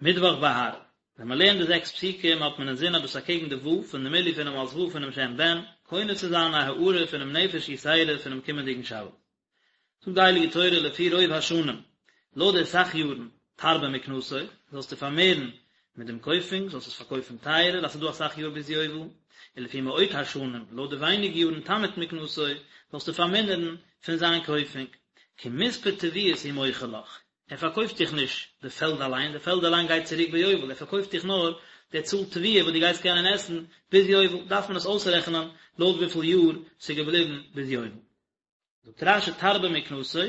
מיטוואך בהר, ווען מען לערנט די זעקס פסוקים האט מען אינזין אז דאס אקעגן די ו' פון די מילוי פונעם אות ו' פונעם שם בן, קונה צו זיין א הארה פונעם נפש יתירה פונעם קומענדיגן שבת. זאגט די הייליגע תורה לפי רוב השנים, לויט די סך יארן, תרבה מקנתו, זאלסטו פארמערן מיט דעם קויפונג, זאלסט עס פארקויפן טייערער, אז ס'איז דא אסאך יאר ביז יובל, ולפי מעוט השנים, לויט די ווייניג יארן תמעיט מקנתו, זאלסטו פארמינערן פון זיין קויפונג, כי מספר תבואות הוא מוכר לך, ער פארקויפט דיך נישט די פעלד אליין, די פעלד אליין גייט צוריק ביובל, ער פארקויפט דיך נאר די צאל תבואה וואס דו גייסט קענען עסן ביז יובל, דארף מען עס אויסרעכענען לויט וויפיל יאר ס'איז געבליבן ביז יובל. זאגט רש"י תרבה מקנתו,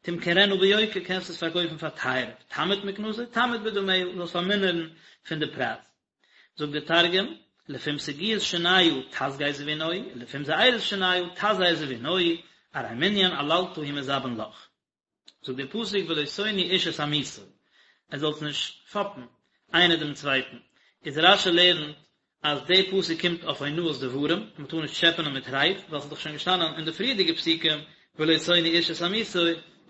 תמכרנה ביוקר, קענסט עס פארקויפן פאר טייערער, תמעיט מקנתו, תמעיט בדמיה, זאלסט פארמינערן פון די פרייז. זאגט דער תרגום, לפום סגיאות שניא תסגי זבינוהי, ולפום זעירות שניא תזהר זבינוהי, ארי מנין עללתא הוא מזבין לך. זאגט דער פסוק ולא תונו איש את עמיתו, עטס זאלטס נישט פאפן איינער דעם צווייטן, איז רש"י לערנט אז דער פסוק קומט אויף אונאת דברים, אז מען טאר נישט טשעפענען מיט רייד, ווייל ס'איז דאך שוין געשטאנען אין די פריערדיגע פסוקים ולא תונו איש את עמיתו,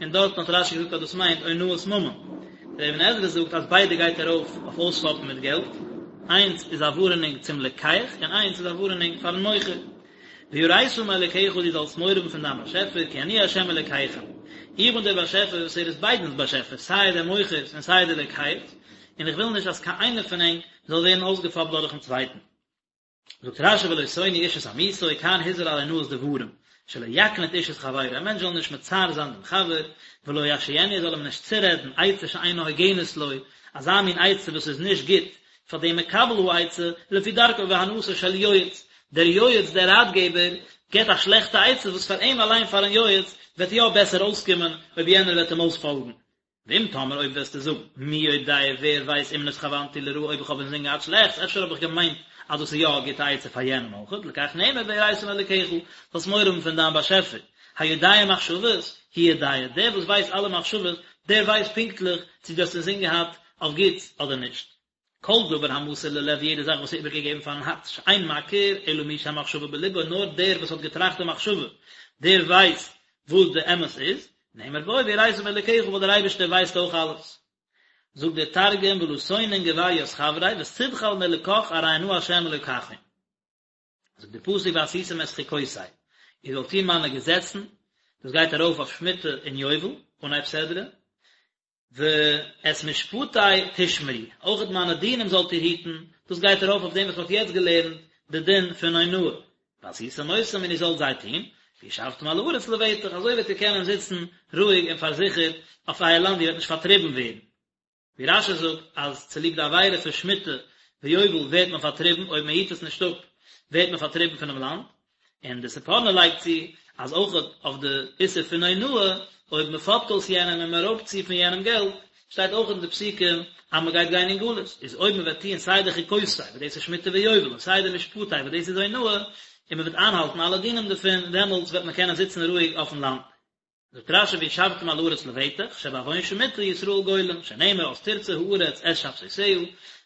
און דארטן האט רש"י געזאגט אז דאס מיינט אונאת ממון. דער אבן עזרא זאגט אז ביידע גייט ארויף אויף אויספאפן מיט געלט, איינס איז א ווארענונג צום לוקח און איינס איז א ווארענונג פארן מוכר. ויראת מאלקיך דו זאלסט מורא האבן פון דיין באשעפער, כי אני ה' אלקיכם, איך בין דער באשעפער וואס ער איז ביידנס באשעפער, סיי דער מוכר'ס און סיי דער לוקח'ס, און איך וויל נישט אז קיין איינער פון ענק זאל ווערן אויסגעפאפט דורכ'ן צווייטן. זאגט רש"י ולא תונו איש את עמיתו, כאן הזהיר על אונאת דברים, שלא יקניט איש את חברו, א מענטש זאל נישט מצער זיין דעם חבר, ולא ישאינו ער זאל אים נישט צורעדן עצה שאינה הוגנת לו, אזא מין עצה וואס איז נישט גוט פאר דעם מקבל העצה, לפי דרכו והנאתו של יועץ, דער יועץ, דער ראטגעבער, געבט א שלעכטע עצה וואס פאר אים אליין פארן יועץ וועט יא בעסער אויסקומען אויב יענער וועט אים אויספאלגן. ואם תאמר אויב וועסטו זאגן, מי יודע ווער ווייסט אם נתכוונתי לרעה אויב איך האב אינזין געהאט שלעכטס, אפשר האב איך געמיינט אז דאס איז יא א גוטע עצה פאר יענעם אויכעט, לכך נאמר ויראת מאלקיך, זאלסט מורא האבן פון דיין באשעפער, היודע מחשבות, הוא יודע, דער וואס ווייסט אלע מחשבות, דער ווייסט פונקטליך צו דו האסט אינזין געהאט אויף גוטס אדער נישט. כל דבר המסור ללב יעדע זאך וואס איז איבערגעגעבן פארן הארץ שאין מכיר אלא מי שהמחשבה בלבו נאר דער וואס האט געטראכט די מחשבה דער ווייסט וואס די אמת איז, נאמר בו ויראת מאלקיך ווייל דער אייבערשטער ווייסט אויך אלעס. זאגט דער תרגום ולא תונון גבר ית חבריה ותדחל מאלקך ארי אנא ה' אלקכון. זאגט דער פסוק ועשיתם את חוקותי, איר זאלט טון מיינע געזעצן, דאס גייט ארויף אויף שמיטה און יובל, אנהייב סדרה, ואת משפטי תשמרו, אויכעט מיינע דינים זאלט איר היטן, דאס גייט ארויף אויף דעם וואס מען האט יעצט געלערנט, די דין פון אונאה, ועשיתם אותם און איר זאלט זיי טון, וישבתם על הארץ לבטח, אזוי וועט איר קענען זיצן רואיג און פארזיכערט אויף אייער לאנד, איר וועט נישט פארטריבן ווערן. ווי רש"י זאגט אז צוליב די עבירה פון שמיטה ויובל ווערט מען פארטריבן, אויב מען היט עס נישט אפ ווערט מען פארטריבן פונעם לאנד, און די ספורנו לייגט צו אז אויך אויף די איסור פון אונאה, אויב מען פאפט אויס יענעם און מען רויבט צו פון יענעם געלט, שטייט אויך אין די פסוקים אז מען גייט גיין אין גלות, איז אויב מען וועט טוען סיי די חוקותי וואס דאס איז שמיטה ויובל און סיי די משפטי וואס דאס איז אונאה, און מען וועט איינהאלטן אלע דינים דערפון, דעמאלטס וועט מען קענען זיצן רואיג אויפן לאנד. זאגט רש"י וישבתם על הארץ לבטח, שבעוון שמיטה ישראל גולים, שנאמר אז תרצה הארץ את שבתותיה,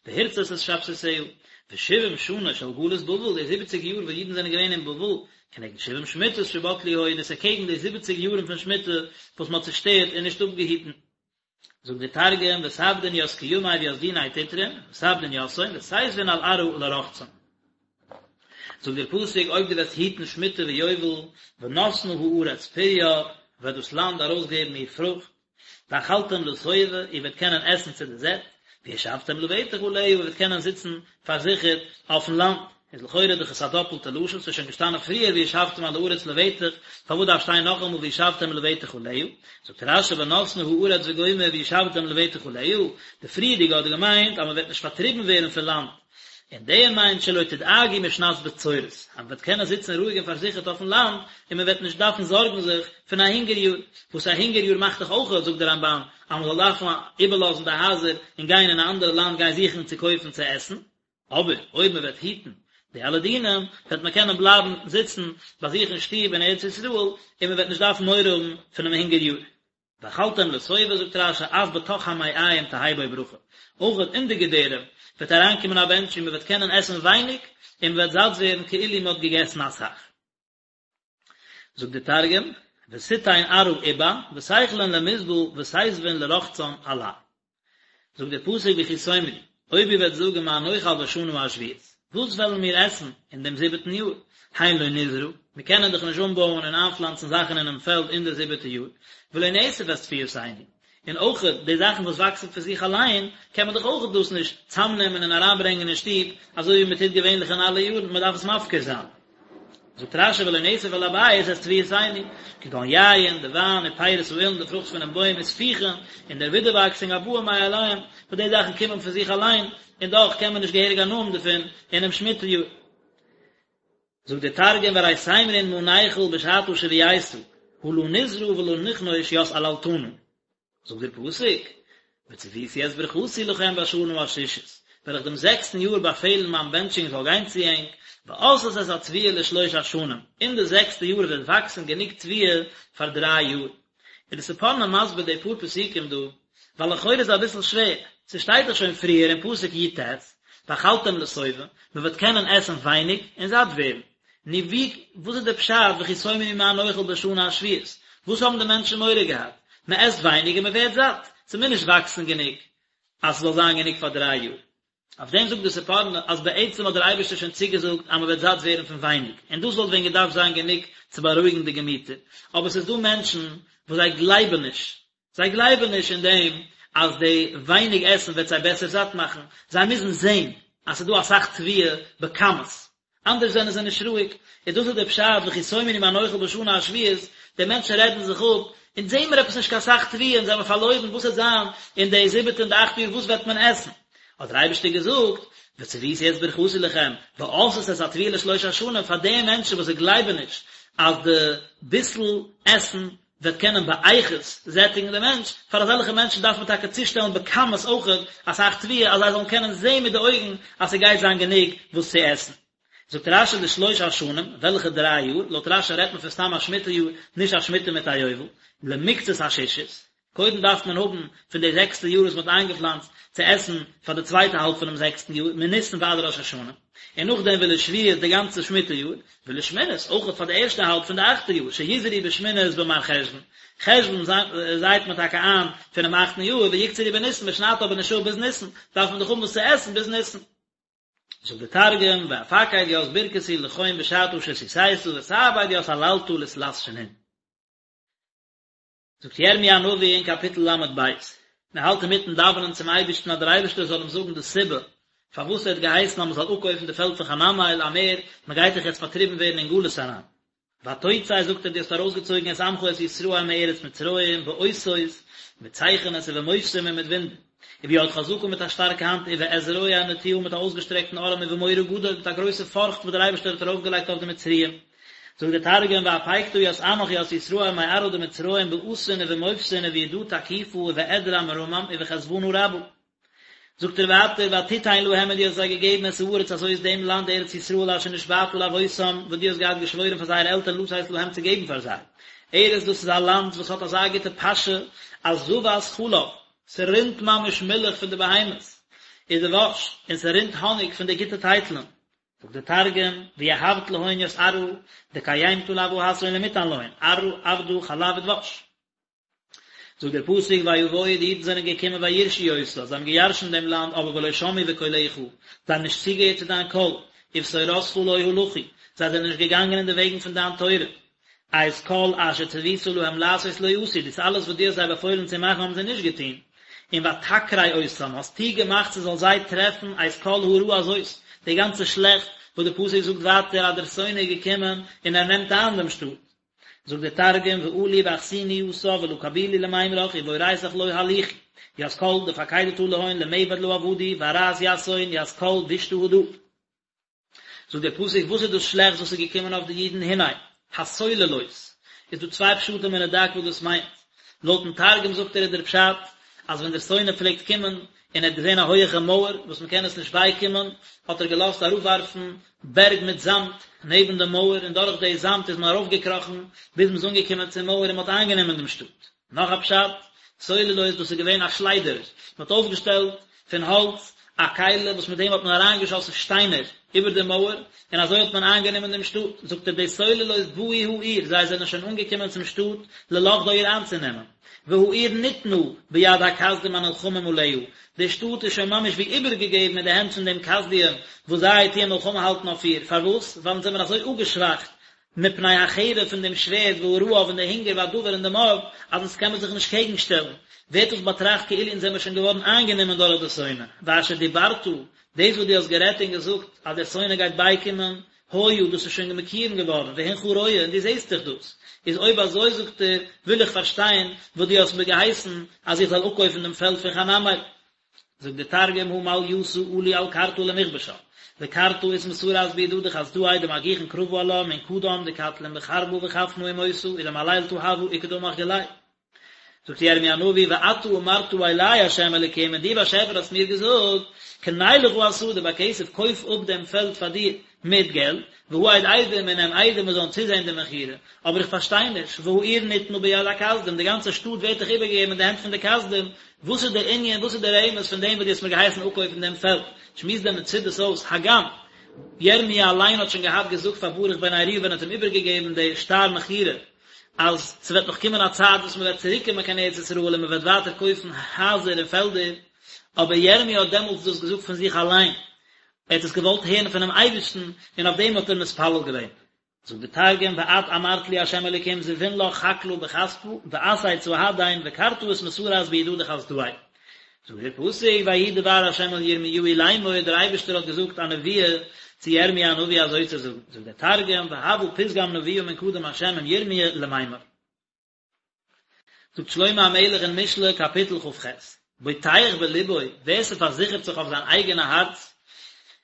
והרצת את שבתותיה, ושבעים שנה של גלות בבל, די זיבעציג יאר וואס אידן זענען געווען אין בבל, כנגד שבעים שמיטות שבטלו היו, דאס איז אקעגן די זיבעציג יארן פון שמיטה וואס מען האט צושטערט און נישט אפגעהיטן. זאגט דער תרגום, ותעבדון ית קימי וית דיני תטרון, ותעבדון יתהון, ותיתבון על ארעא לרחצן. זאגט דער פסוק, אויב דו וועסט היטן שמיטה ויובל, ונתנה הארץ פריה, וועט דאס לאנד ארויסגעבן איר פרוכט, ואכלתם לשובע, איר וועט קענען עסן צו די זעט, וישבתם לבטח עליה, איר וועט קענען זיצן פארזיכערט אויפן לאנד. איז לכאורה דאך עס א דאפלטע לשון, ס'איז שוין געשטאנען פריער וישבתם על הארץ לבטח, פארוואס דארף שטיין נאכאמאל וישבתם לבטח עליה? זאגט רש"י ונתנה הארץ וגומר וישבתם לבטח עליה, די פריערדיגע האט געמיינט אז מ'וועט נישט פארטריבן ווערן פון לאנד, און דער מיינט שלא תדאגו משנת בצורת, אז מ'וועט קענען זיצן רואיג און פארזיכערט אויפן לאנד, און מ'וועט נישט דארפן זארגן זיך פון א הונגער יאר, וואס א הונגער יאר מאכט דאך אויך, זאגט דער רמב"ן, אז מ'זאל דארפן איבערלאזן די הייזער און גיין אין א אנדערע לאנד גיין זוכן צו קויפן צו עסן. אבער אויב מען וועט היטן די אלע דינים, וועט מען קענען בלייבן זיצן ביי זיך אין שטוב אין ארץ ישראל, און מען וועט נישט דארפן מורא האבן פונעם הונגער יאר. ואכלתם לשובע, זאגט רש"י, אף בתוך המעיים תהא בו ברכה, אויך אין די געדערים וועט אריינקומען א בענטש און מען וועט קענען עסן ווייניג און מען וועט זאט ווערן כאילו מען האט געגעסן אסאך. זאגט דער תרגום, ותיתן ארעא איבע, ותיכלון למסבל, ותיתבון לרחצן עלה. זאגט דער פסוק וכי תאמרו, אויב איר וועט זאגן מה נאכל בשנה השביעית, וואס וועלן מיר עסן אין דעם זיבעטן יאר, הן לא נזרע, מיר קענען דאך נישט אנבויען און איינפלאנצן זאכן אינעם פעלד אין די זיבעטע יאר, ולא נאסף את תבואתנו, און אויך די זאכן וואס וואקסן פון זיך אליין, קען מען דאך אויך דאס נישט צאמנעמען און אריינברענגען אין שטוב, אזוי ווי מען טוט געווענליך אין אלע יארן, מען דארף עס מפקיר זיין. זאגט רשי ולא נאסף אל הבית את תבואתנו, כגון יין, די וויין, ופירות האילן, די פרוכט פונעם בוים, וספיחין, און דער ווידערוואקסונג הבאים מאליהם, וואס די זאכן קומען פון זיך אליין, און דאך קען מען נישט געהעריג הנאה האבן דערפון אינעם שמיטה יאר. זאגט דער תרגום וארי תימרון מה ניכול בשתא שביעיתא, הא לא נזרע ולא נכנוש ית עללתנא. זאגט דער פסוק, וצויתי את ברכתי לכם בשנה השישית, וועל איך דעם זעקסטן יאר באפעלן מיין בענטשונג זאל גיין צו ענק, ועשת את התבואה לשלוש השנים, אין די זעקסטע יאר וועט וואקסן גענוג תבואה פאר דריי יאר. איז די ספורנו מסביר די פאר פסוקים דא, ווייל לכאורה איז אביסל שווער, ס'שטייט דאך שוין פריער אין פסוק י ט, ואכלתם לשובע, מ'וועט קענען עסן ווייניג און זאט ווערן. נו ווי, וואס איז די פשט וכי תאמרו מה נאכל בשנה השביעית? וואס האבן די מענטשן מורא געהאט? מען עסט ווייניג און מען ווערט זאט, ס'מוז נישט וואקסן גענוג אז ס'זאל זיין גענוג פאר דריי יאר. אויף דעם זאגט די ספורנו אז בעצם האט דער אייבערשטער שוין צוגעזאגט אז מען וועט זאט ווערן פון ווייניג, און דאס וואלט ווען געדארפט זיין גענוג צו בארואיגן די געמיטער, אבער ס'איז דא מענטשן וואס זיי גלייבן נישט, זיי גלייבן נישט אין דעם אז די ווייניג עסן וועט זיי בעסער זאט מאכן, זיי מוזן זען אז ס'איז דא אסאך תבואה בכמות, אנדערש זענען זיי נישט רואיג, און דאס איז דער פשט וכי תאמרו מה נאכל בשנה השביעית, די מענטשן רעדן זיך אפ, אונז זעהן מיר עפעס נישט קיין סאך תבואה, אונז זעמיר פארלוירן, וואס וועט זיין אין די זיבעטע און די אכטע יאר, וואס וועט מען עסן? האט דער אייבערשטער געזאגט, וצויתי את ברכתי לכם, ועשת את התבואה לשלוש השנים, פאר די מענטשן וואס זיי גלייבן נישט אז די ביסל עסן וועט קענען באיכות זעטיגן די מענטש, פאר אזעלכע מענטשן דארף מען טאקע צושטעלן בכמות אויכעט אסאך תבואה אז זיי זאלן קענען זען מיט די אויגן אז ס'גייט זיין גענוג וואס צו עסן. זאגט רשי לשלוש השנים, וועלכע דריי יאר? לויט רשי רעדט מען פון סתם א שמיטה יאר, נישט א שמיטה מיט א יובל, למקצת השישית, קודם דארף מען האבן פון די זעקסטע יאר וואס מען האט איינגעפלאנצט צו עסן פאר די צווייטע האלב פונעם זעקסטן יאר, מניסן ועד ראש השנה, און נאכדעם ולשביעית די גאנצע שמיטה יאר, ולשמינית אויך פאר די ערשטע האלב פון די אכטע יאר, שיזרעו בשמינית במרחשוון, חשוון זייט מען טאקע איין פונעם אכטן יאר, ויקצרו בניסן, מען שניידט אבער נישט אפ ביז ניסן, דארף מען דאך האבן וואס צו עסן ביז ניסן. זאגט דער תרגום, ואפקיד ית ברכתי לכון בשתא שתיתא ותעביד ית עללתא לתלת שנין. זאגט ירמי' הנביא אין קאפיטל ל' ב', מען האלט אינמיטן דאווענען צום אייבערשטן אז דער אייבערשטער זאל אים זאגן די סיבה פארוואס ער האט געהייסן אז מען זאל אפקויפן די פעלד פון חנמאל אמער, מען גייט דאך יעצט פארטריבן ווערן אין גלות אריין. ותוצא זאגט ער דו האסט ארויסגעצויגן את עמך את ישראל מארץ מצרים באותות, מיט צייכענעס ובמופתים און מיט וואונדער, וביד חזקה מיט א שטארקע האנט ובאזרוע נטויה מיט א אויסגעשטרעקטן ארעם ובמורא גדול מיט א גרויסע פארכט וואס דער אייבערשטער האט ארויפגעלייגט אויף די מצריים. זאגט דער תרגום ואפיקתא ית עמך ית ישראל מארעא דמצרים באתין ובמופתין ובידא תקיפא ובאדרע מרמם ובחזוונא רבא. זאגט ער ווייטער ותתן להם און דו האסט זיי געגעבן את הארץ הזאת דעם לאנד ארץ ישראל אשר נשבעת לאבותם וואס דו האסט געהאט געשוואוירן פאר זייערע עלטערן לתת להם צו געבן פאר זיי ארץ דאס איז א לאנד וואס האט אזא גוטע פאשע אז זבת חלב ס'רינט ממש מילך פון די בהמות ודבש און ס'רינט האניג פון די גוטע טייטלען זאגט דער תרגום, ויהבת להון ית ארעא, דקיימתא לאבהתהון למתן להון, ארעא עבדא חלב ודבש. זאגט דער פסוק ויבואו די אידן זענען געקומען וירשו אותה, זיי האבן געירשנט דעם לאנד אבער ולא שמעו בקולך, זיי האבן נישט צוגעהערט צו דיין קול, ובתורתך לא הלכו, זיי זענען נישט געגאנגען אין די וועגן פון דיין תורה, את כל אשר צוית להם לעשות לא עשו, דאס אלעס וואס דו האסט זיי באפוילן צו מאכן האבן זיי נישט געטון, און ותקרה אותם, האסטו געמאכט ס'זאל זיי טרעפן את כל הרעה הזאת, די גאנצע שלעכט, וואס די פסוק זאגט ווייטער אז דער שונא איז געקומען און ער נעמט איין דעם שטאט. זאגט דער תרגום, ועלו ואחסינו יתה ולא קבילו למימרך ובאורייתך לא הליכו, ית כל דפקידתא להון למעבד לא עבדו, וארעת יתהון ית כל בישתא הדא. זאגט דער פסוק וואס איז דאס שלעכטס וואס איז געקומען אויף די אידן הנה, הסוללות, איז דא צוויי פשטים אין רד"ק וואס דאס מיינט, לויטן תרגום זאגט ער איז דער פשט אז ווען דער שונא פלעגט קומען און ער האט געזען א הויעכע מויער וואס מען קען עס נישט בייקומען האט ער געלאזט אראפווארפן בערג מיט זאמד נעבן די מויער און דורך די זאמד איז מען ארויפגעקראכן ביז מען איז אנגעקומען צום מויער און מען האט איינגענומען דעם שטאט. נאך א פשט, סוללות דאס איז געווען א שליידער, מען האט אויפגעשטעלט פון האלץ א. א כלי וואס מיט דעם האט מען אריינגעשאסן שטיינער איבער די מויער, און אזוי האט מען איינגענומען דעם שטאט, זאגט ער די סוללות באו העיר, זיי זענען שוין אנגעקומען צום שטאט ללכדה איר איינצונעמען, והעיר ניתנה ביד הכשדים הנלחמים עליה, די שטאט איז שוין ממש ווי איבערגעגעבן אין די הענט פון דעם כשדים וואס זיי טוען מלחמה האלטן אויף איר, פארוואס? ווייל אונז זעמיר אזוי אפגעשוואכט מפני החרב פון דעם שווערד והרעב און די הונגער והדבר און די מארד, אז אונז קען מען זיך נישט קעגן שטעלן, ווערט דאס באטראכט כאילו אונז זעמיר שוין געווארן איינגענומען דורך די שונא, ואשר דיברת, דאס וואס דו האסט גערעדט און געזאגט אז דער שונא גייט בייקומען, היה, דאס איז שוין מקוים געווארן, והנך רואה, און דו זעסט דאך דאס. איז אויב אזוי, זאגט ער, וויל איך פארשטיין וואס דו האסט מיר געהייסן אז איך זאל אפקויפן דעם פעלד פון חנמאל. זאגט דער תרגום הא מעליתא עלו על קרתא למכבשה, וקרתא אתמסרת בידא דחסדאי דמגיחין קרבא עלה מן קדם דקטלין בחרבא וחפנא ומותא ודמעללתא הוה וכדעמך גלי. זאגט ירמי' הנביא ואתה אמרת אלי ה' אלוקים און דו באשעפער האסט מיר געזאגט קנה לך השדה בכסף קויף אפ דעם פעלד פאר דיר מיט געלט והעד עדים און נעם עדים וואס זאלן צוזען די מכירה אבער איך פארשטיי נישט והעיר ניתנה ביד הכשדים די גאנצע שטאט ווערט דאך איבערגעגעבן אין די הענט פון די כשדים וואס איז דער ענין וואס איז דער רמז פון דעם וואס דו האסט מיר געהייסן אפקויפן דעם פעלד שמועסט דער מצודות אויס הגם ירמי' אליין האט שוין געהאט געזאגט פאר ברוך בן נריה ווען ער האט אים איבערגעגעבן די שטר מכירה אז ס'וועט נאך קומען א צייט וואס מ'וועט צוריקקומען קיין ארץ ישראל און מ'וועט ווייטער קויפן הייזער און פעלדער, אבער ירמי' האט דעמאלטס דאס געזאגט פון זיך אליין, ער האט עס געוואלט הערן פונעם אייבערשטן און אויף דעם האט ער מתפלל געווען. זאגט דער תרגום, ואת אמרת לי ה' אלוקים זבין לך חקלא בכספא, ואסהיד סהדין וקרתא אתמסרת בידא דחסדאי. זאגט דער פסוק, ויהי דבר ה' אל ירמיהו לאמור, דער אייבערשטער האט געזאגט א נבואה צו ירמי' הנביא אזוי צו זאגן, זאגט דער תרגום, והוה פתגם נבואה מן קדם ה' עם ירמיה למימר. זאגט שלמה המלך אין משלי קאפיטל כ"ח, בוטח בלבו, ווער ס'פארזיכערט זיך אויף זיין אייגענע הארץ,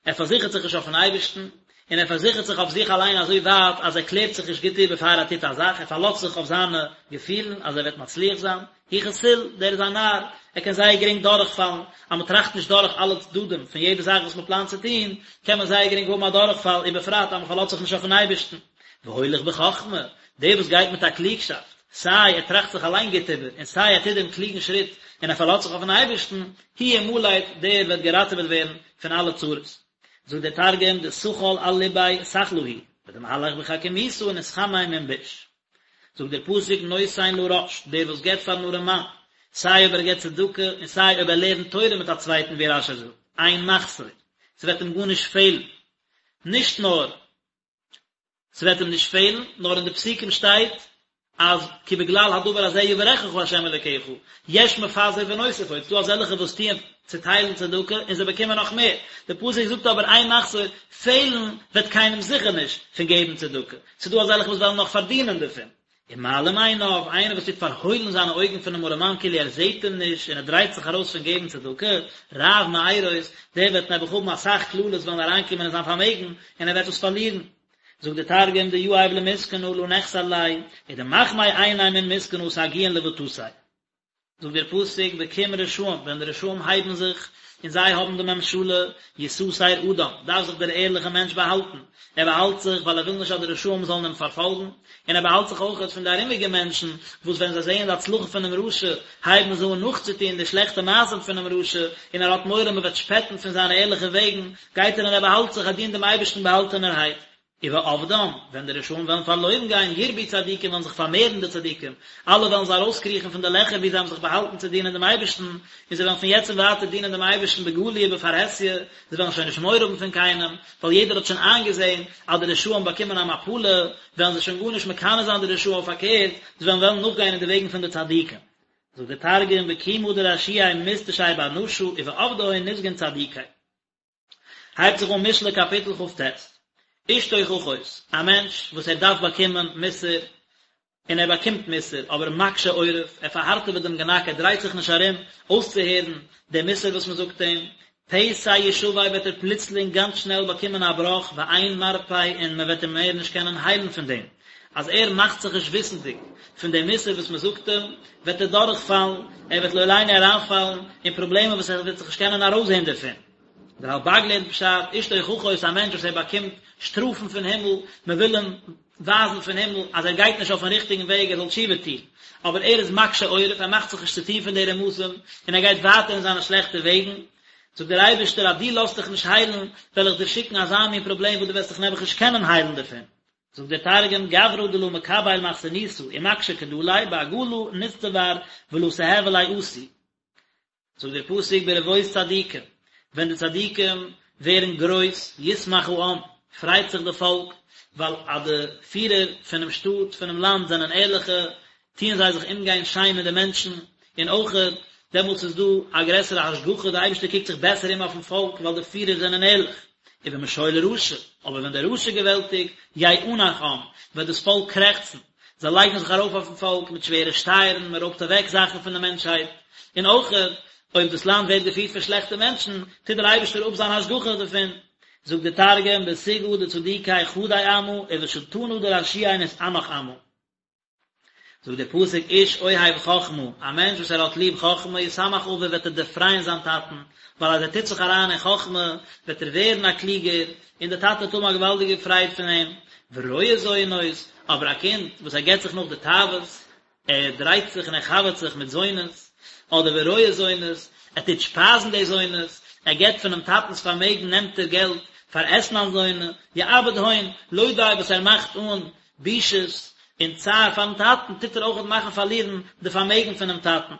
ער פארזיכערט זיך נישט אויפן אייבערשטן, און ער פארזיכערט זיך אויף זיך אליין אזוי ווייט אז ער קלערט זיך נישט גוט איבער פאר ער טוט א זאך, ער פארלאזט זיך אויף זיינע געפילן אז ער וועט מצליח זיין, הוא כסיל, דער איז א נאר, ער קען זייער גרינג דורכפאלן, אז מען טראכט נישט דורך אלע צדדים פון יעדע זאך וואס מען פלאנט צו טון, קען מען זייער גרינג האבן א דורכפאל, ובפרט אז מען פארלאזט זיך נישט אויפן אייבערשטן. והולך בחכמה, דער וואס גייט מיט א קלוגשאפט, סיי ער טראכט זיך אליין גוט איבער, און סיי ער טוט דעם קלוגן שריט און ער פארלאזט זיך אויפן אייבערשטן, הוא ימלט, דער וועט געראטעוועט ווערן פון אלע צרות. זאגט דער תרגום, דסכל על לביה סכלא הוא, ודמהלך בחכימותא נתחמי מן ביש. זאגט דער פסוק נותן לרש, דער וואס געבט פארן ארעמאן, סיי אויב ער געבט צדקה און סיי אויב ער לערנט תורה מיט א צווייטן ווי רש"י זאגט, אין מחסור, ס'וועט אים גארנישט פעלן, נישט נאר ס'וועט אים נישט פעלן, נאר אין די פסוקים שטייט אז כי בגלל הדבר הזה יברכך ה' אלוקיך, יש מפזר ונוסף עוד, ס'דא אזעלכע וואס טוען צוטיילן צדקה און זיי באקומען נאך מער, די פסוק זאגט אבער אין מחסור, פעלן וועט קיינעם זיכער נישט פון געבן צדקה, ס'דא אזעלכע וואס וועלן נאך פארדינען דערפון. ומעלים עיניו, איינער וואס טוט פארהוילן זיינע אויגן פונעם ארעמאן כאילו ער זעט אים נישט און ער דרייט זיך ארויס פון געבן צדקה, רב מארות, דער וועט נעבעך האבן אסאך קללות וועלן אריינקומען אין זיין פארמעגן און ער וועט עס פארלירן. זאגט דער תרגום דיהיב למסכנא לא נחסר ליה, ודמחמי עיניה מן מסכנא סגיאן לבטתיה. זאגט דער פסוק בקום רשעים, ווען די רשעים הייבן זיך, און זיי האבן די ממשלה, יסתר אדם, דארף זיך דער ערליכער מענטש באהאלטן, ער באהאלט זיך ווייל ער וויל נישט אז די רשעים זאלן אים פארפאלגן, און ער באהאלט זיך אויכעט פון די ארומיגע מענטשן, וואס ווען זיי זעען די הצלחה פונעם רשע, הייבן זיי אן נאכצוטון די שלעכטע מעשים פונעם רשע, און ער האט מורא מען וועט שפעטן פון זיינע ערליכע וועגן, גייט ער און ער באהאלט זיך, ער דינט דעם אייבערשטן באהאלטענערהייט. ובאבדם, ווען די רשעים וועלן פארלוירן גיין, ירבו צדיקים וועלן זיך פארמערן די צדיקים, אלע וועלן זיי ארויסקריכן פון די לעכער וואו זיי האבן זיך באהאלטן צו דינען דעם אייבערשטן, און זיי וועלן פון יעצט און ווייטער דינען דעם אייבערשטן בגלוי ובפרהסיא, זיי וועלן שוין נישט מורא האבן פון קיינעם, ווייל יעדער האט שוין איינגעזען אז די רשעים באקומען א מפלה, וועלן זיי שוין גארנישט מקנא זיין די רשעים, פארקערט, זיי וועלן וועלן נאכגיין אין די וועגן פון די צדיקים. זאגט דער תרגום, בקימא דרשיעי מתטשי בר נשא, ובאבדהון נסגון צדיקי. הייבט זיך אן משלי קאפיטל כ"ט, איש תוכחות, א מענטש וואס ער דארף באקומען מוסר, און ער באקומט מוסר, אבער מקשה עורף, ער פארהארטעוועט דעם גענאק, ער דרייט זיך נישט ארום אויסצוהערן דעם מוסר וואס מען זאגט אים, פתע ישבר וועט ער פלוצלינג גאנץ שנעל באקומען א בראך, ואין מרפא און מען וועט אים מער נישט קענען היילן פון דעם. אז ער מאכט זיך נישט וויסנדיג פון דעם מוסר וואס מען זאגט אים, וועט ער דורכפאלן, ער וועט לא עלינו אריינפאלן אין פראבלעמען וואס ער וועט זיך נישט קענען ארויסזען דערפון. דער רלב"ג לערנט פשט, איש תוכחות איז א מענטש וואס ער באקומט שטראפן פון הימל, מען וויל אים ווייזן פון הימל אז ער גייט נישט אויפן ריכטיגן וועג ער זאל תשובה טון, אבער ער איז מקשה עורף, ער מאכט זיך נישט צו טון פון די רמזים, און ער גייט ווייטער אין זיינע שלעכטע וועגן. זאגט דער אייבערשטער אז דו לאזט דיך נישט היילן, וועל איך דיר שיקן אזא מין פראבלעם וואס דו וועסט דיך נעבעך נישט קענען היילן דערפון. זאגט דער תרגום, גברא דלא מקבל מכסנותא ומקשי קדליה בעגלא נצטבר ולא תהוי ליה עתי. זאגט דער פסוק ברבות צדיקים, ווען די צדיקים ווערן גרויס, ישמח העם, פרייט זיך די פאלק, ווייל אז די פירער פונעם שטאט, פונעם לאנד זענען ערליכע, טוען זיי זיך אומגיין שיין מיט די מענטשן, און אויכעט דעמאלטס איז דא א גרעסערע השגחה, די אייבערשטער קוקט זיך בעסער אום אויפן פאלק ווייל די פירער זענען ערליך. ובמשול רשע, אבער ווען דער רשע געוועלטיגט, יאנח עם, וועט דאס פאלק קרעכצן, זיי לייגן זיך ארויף אויפן פאלק מיט שווערע שטייערן, מען רויבט אוועק זאכן פון די מענטשהייט, און אויכעט אויב דאס לאנד ווערט געפירט פון שלעכטע מענטשן, טוט דער אייבערשטער אפ זיין השגחה דערפון. זאגט דער תרגום, בסוגעא דצדיקי חדי עמא, ובשולטנא דרשיעי נתאנח עמא. זאגט דער פסוק איש אוהב חכמה, א מענטש וואס ער האט ליב חכמה, ישמח אביו וועט ער דערפרייען זיין טאטן, ווייל אז ער טוט זיך אריין אין חכמה, וועט ער ווערן א קלוגער, און דער טאטע וועט האבן א געוואלדיגע פרייד פון אים, ורועה זונות, אבער א קינד וואס ער געבט זיך נאך די תאוות, ער דרייט זיך און ער חבר'ט זיך מיט זונות, אדער ורועה זונות, ער טוט שפייזן די זונות, ער געבט פונעם טאטנ'ס פארמעגן נעמט ער געלט פאר אתנן זונה, יאבד הון, לא די וואס ער מאכט אן בושות און צער פארן טאטן, טוט ער אויכעט מאכן פארלירן די פארמעגן פונעם טאטן.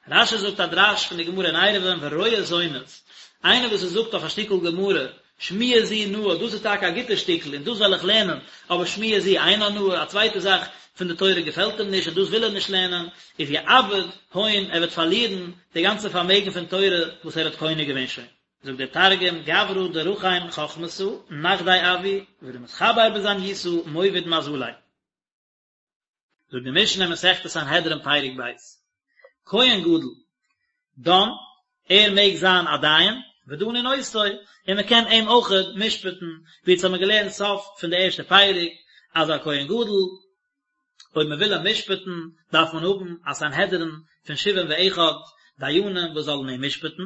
רש"י זאגט א דרש פון די גמרא אין עירובין ורועה זונות, איינער וואס ער זאגט אויף א שטיקל גמרא, שמועה זו נאה, דאס איז טאקע א גוטע שטיקל און דאס וועל איך לערנען, אבער שמועה זו אינה נאה, א צווייטע זאך פון די תורה געפעלט אים נישט און דאס וויל ער נישט לערנען, איז יאבד הון, ער וועט פארלירן די גאנצע פארמעגן פון תורה וואס ער האט קונה געווען שוין. זאגט דער תרגום, גברא דרחים חכמתא, נחדי אבוי, ודמתחבר בזניותא, מוביד מזליה. זאגט די משנה אין מסכת סנהדרין פרק ב', כהן גדול, דן, ער מעג זיין א דיין, ודנין אותו, און מען קען אים אויכעט משפט'ן, ווי אונז האבן געלערנט סוף פון די ערשטע פרק, אז א כהן גדול, אויב מען וויל אים משפט'ן, דארף מען האבן א סנהדרין פון שבעים ואחד דיינים וואס זאלן אים משפט'ן,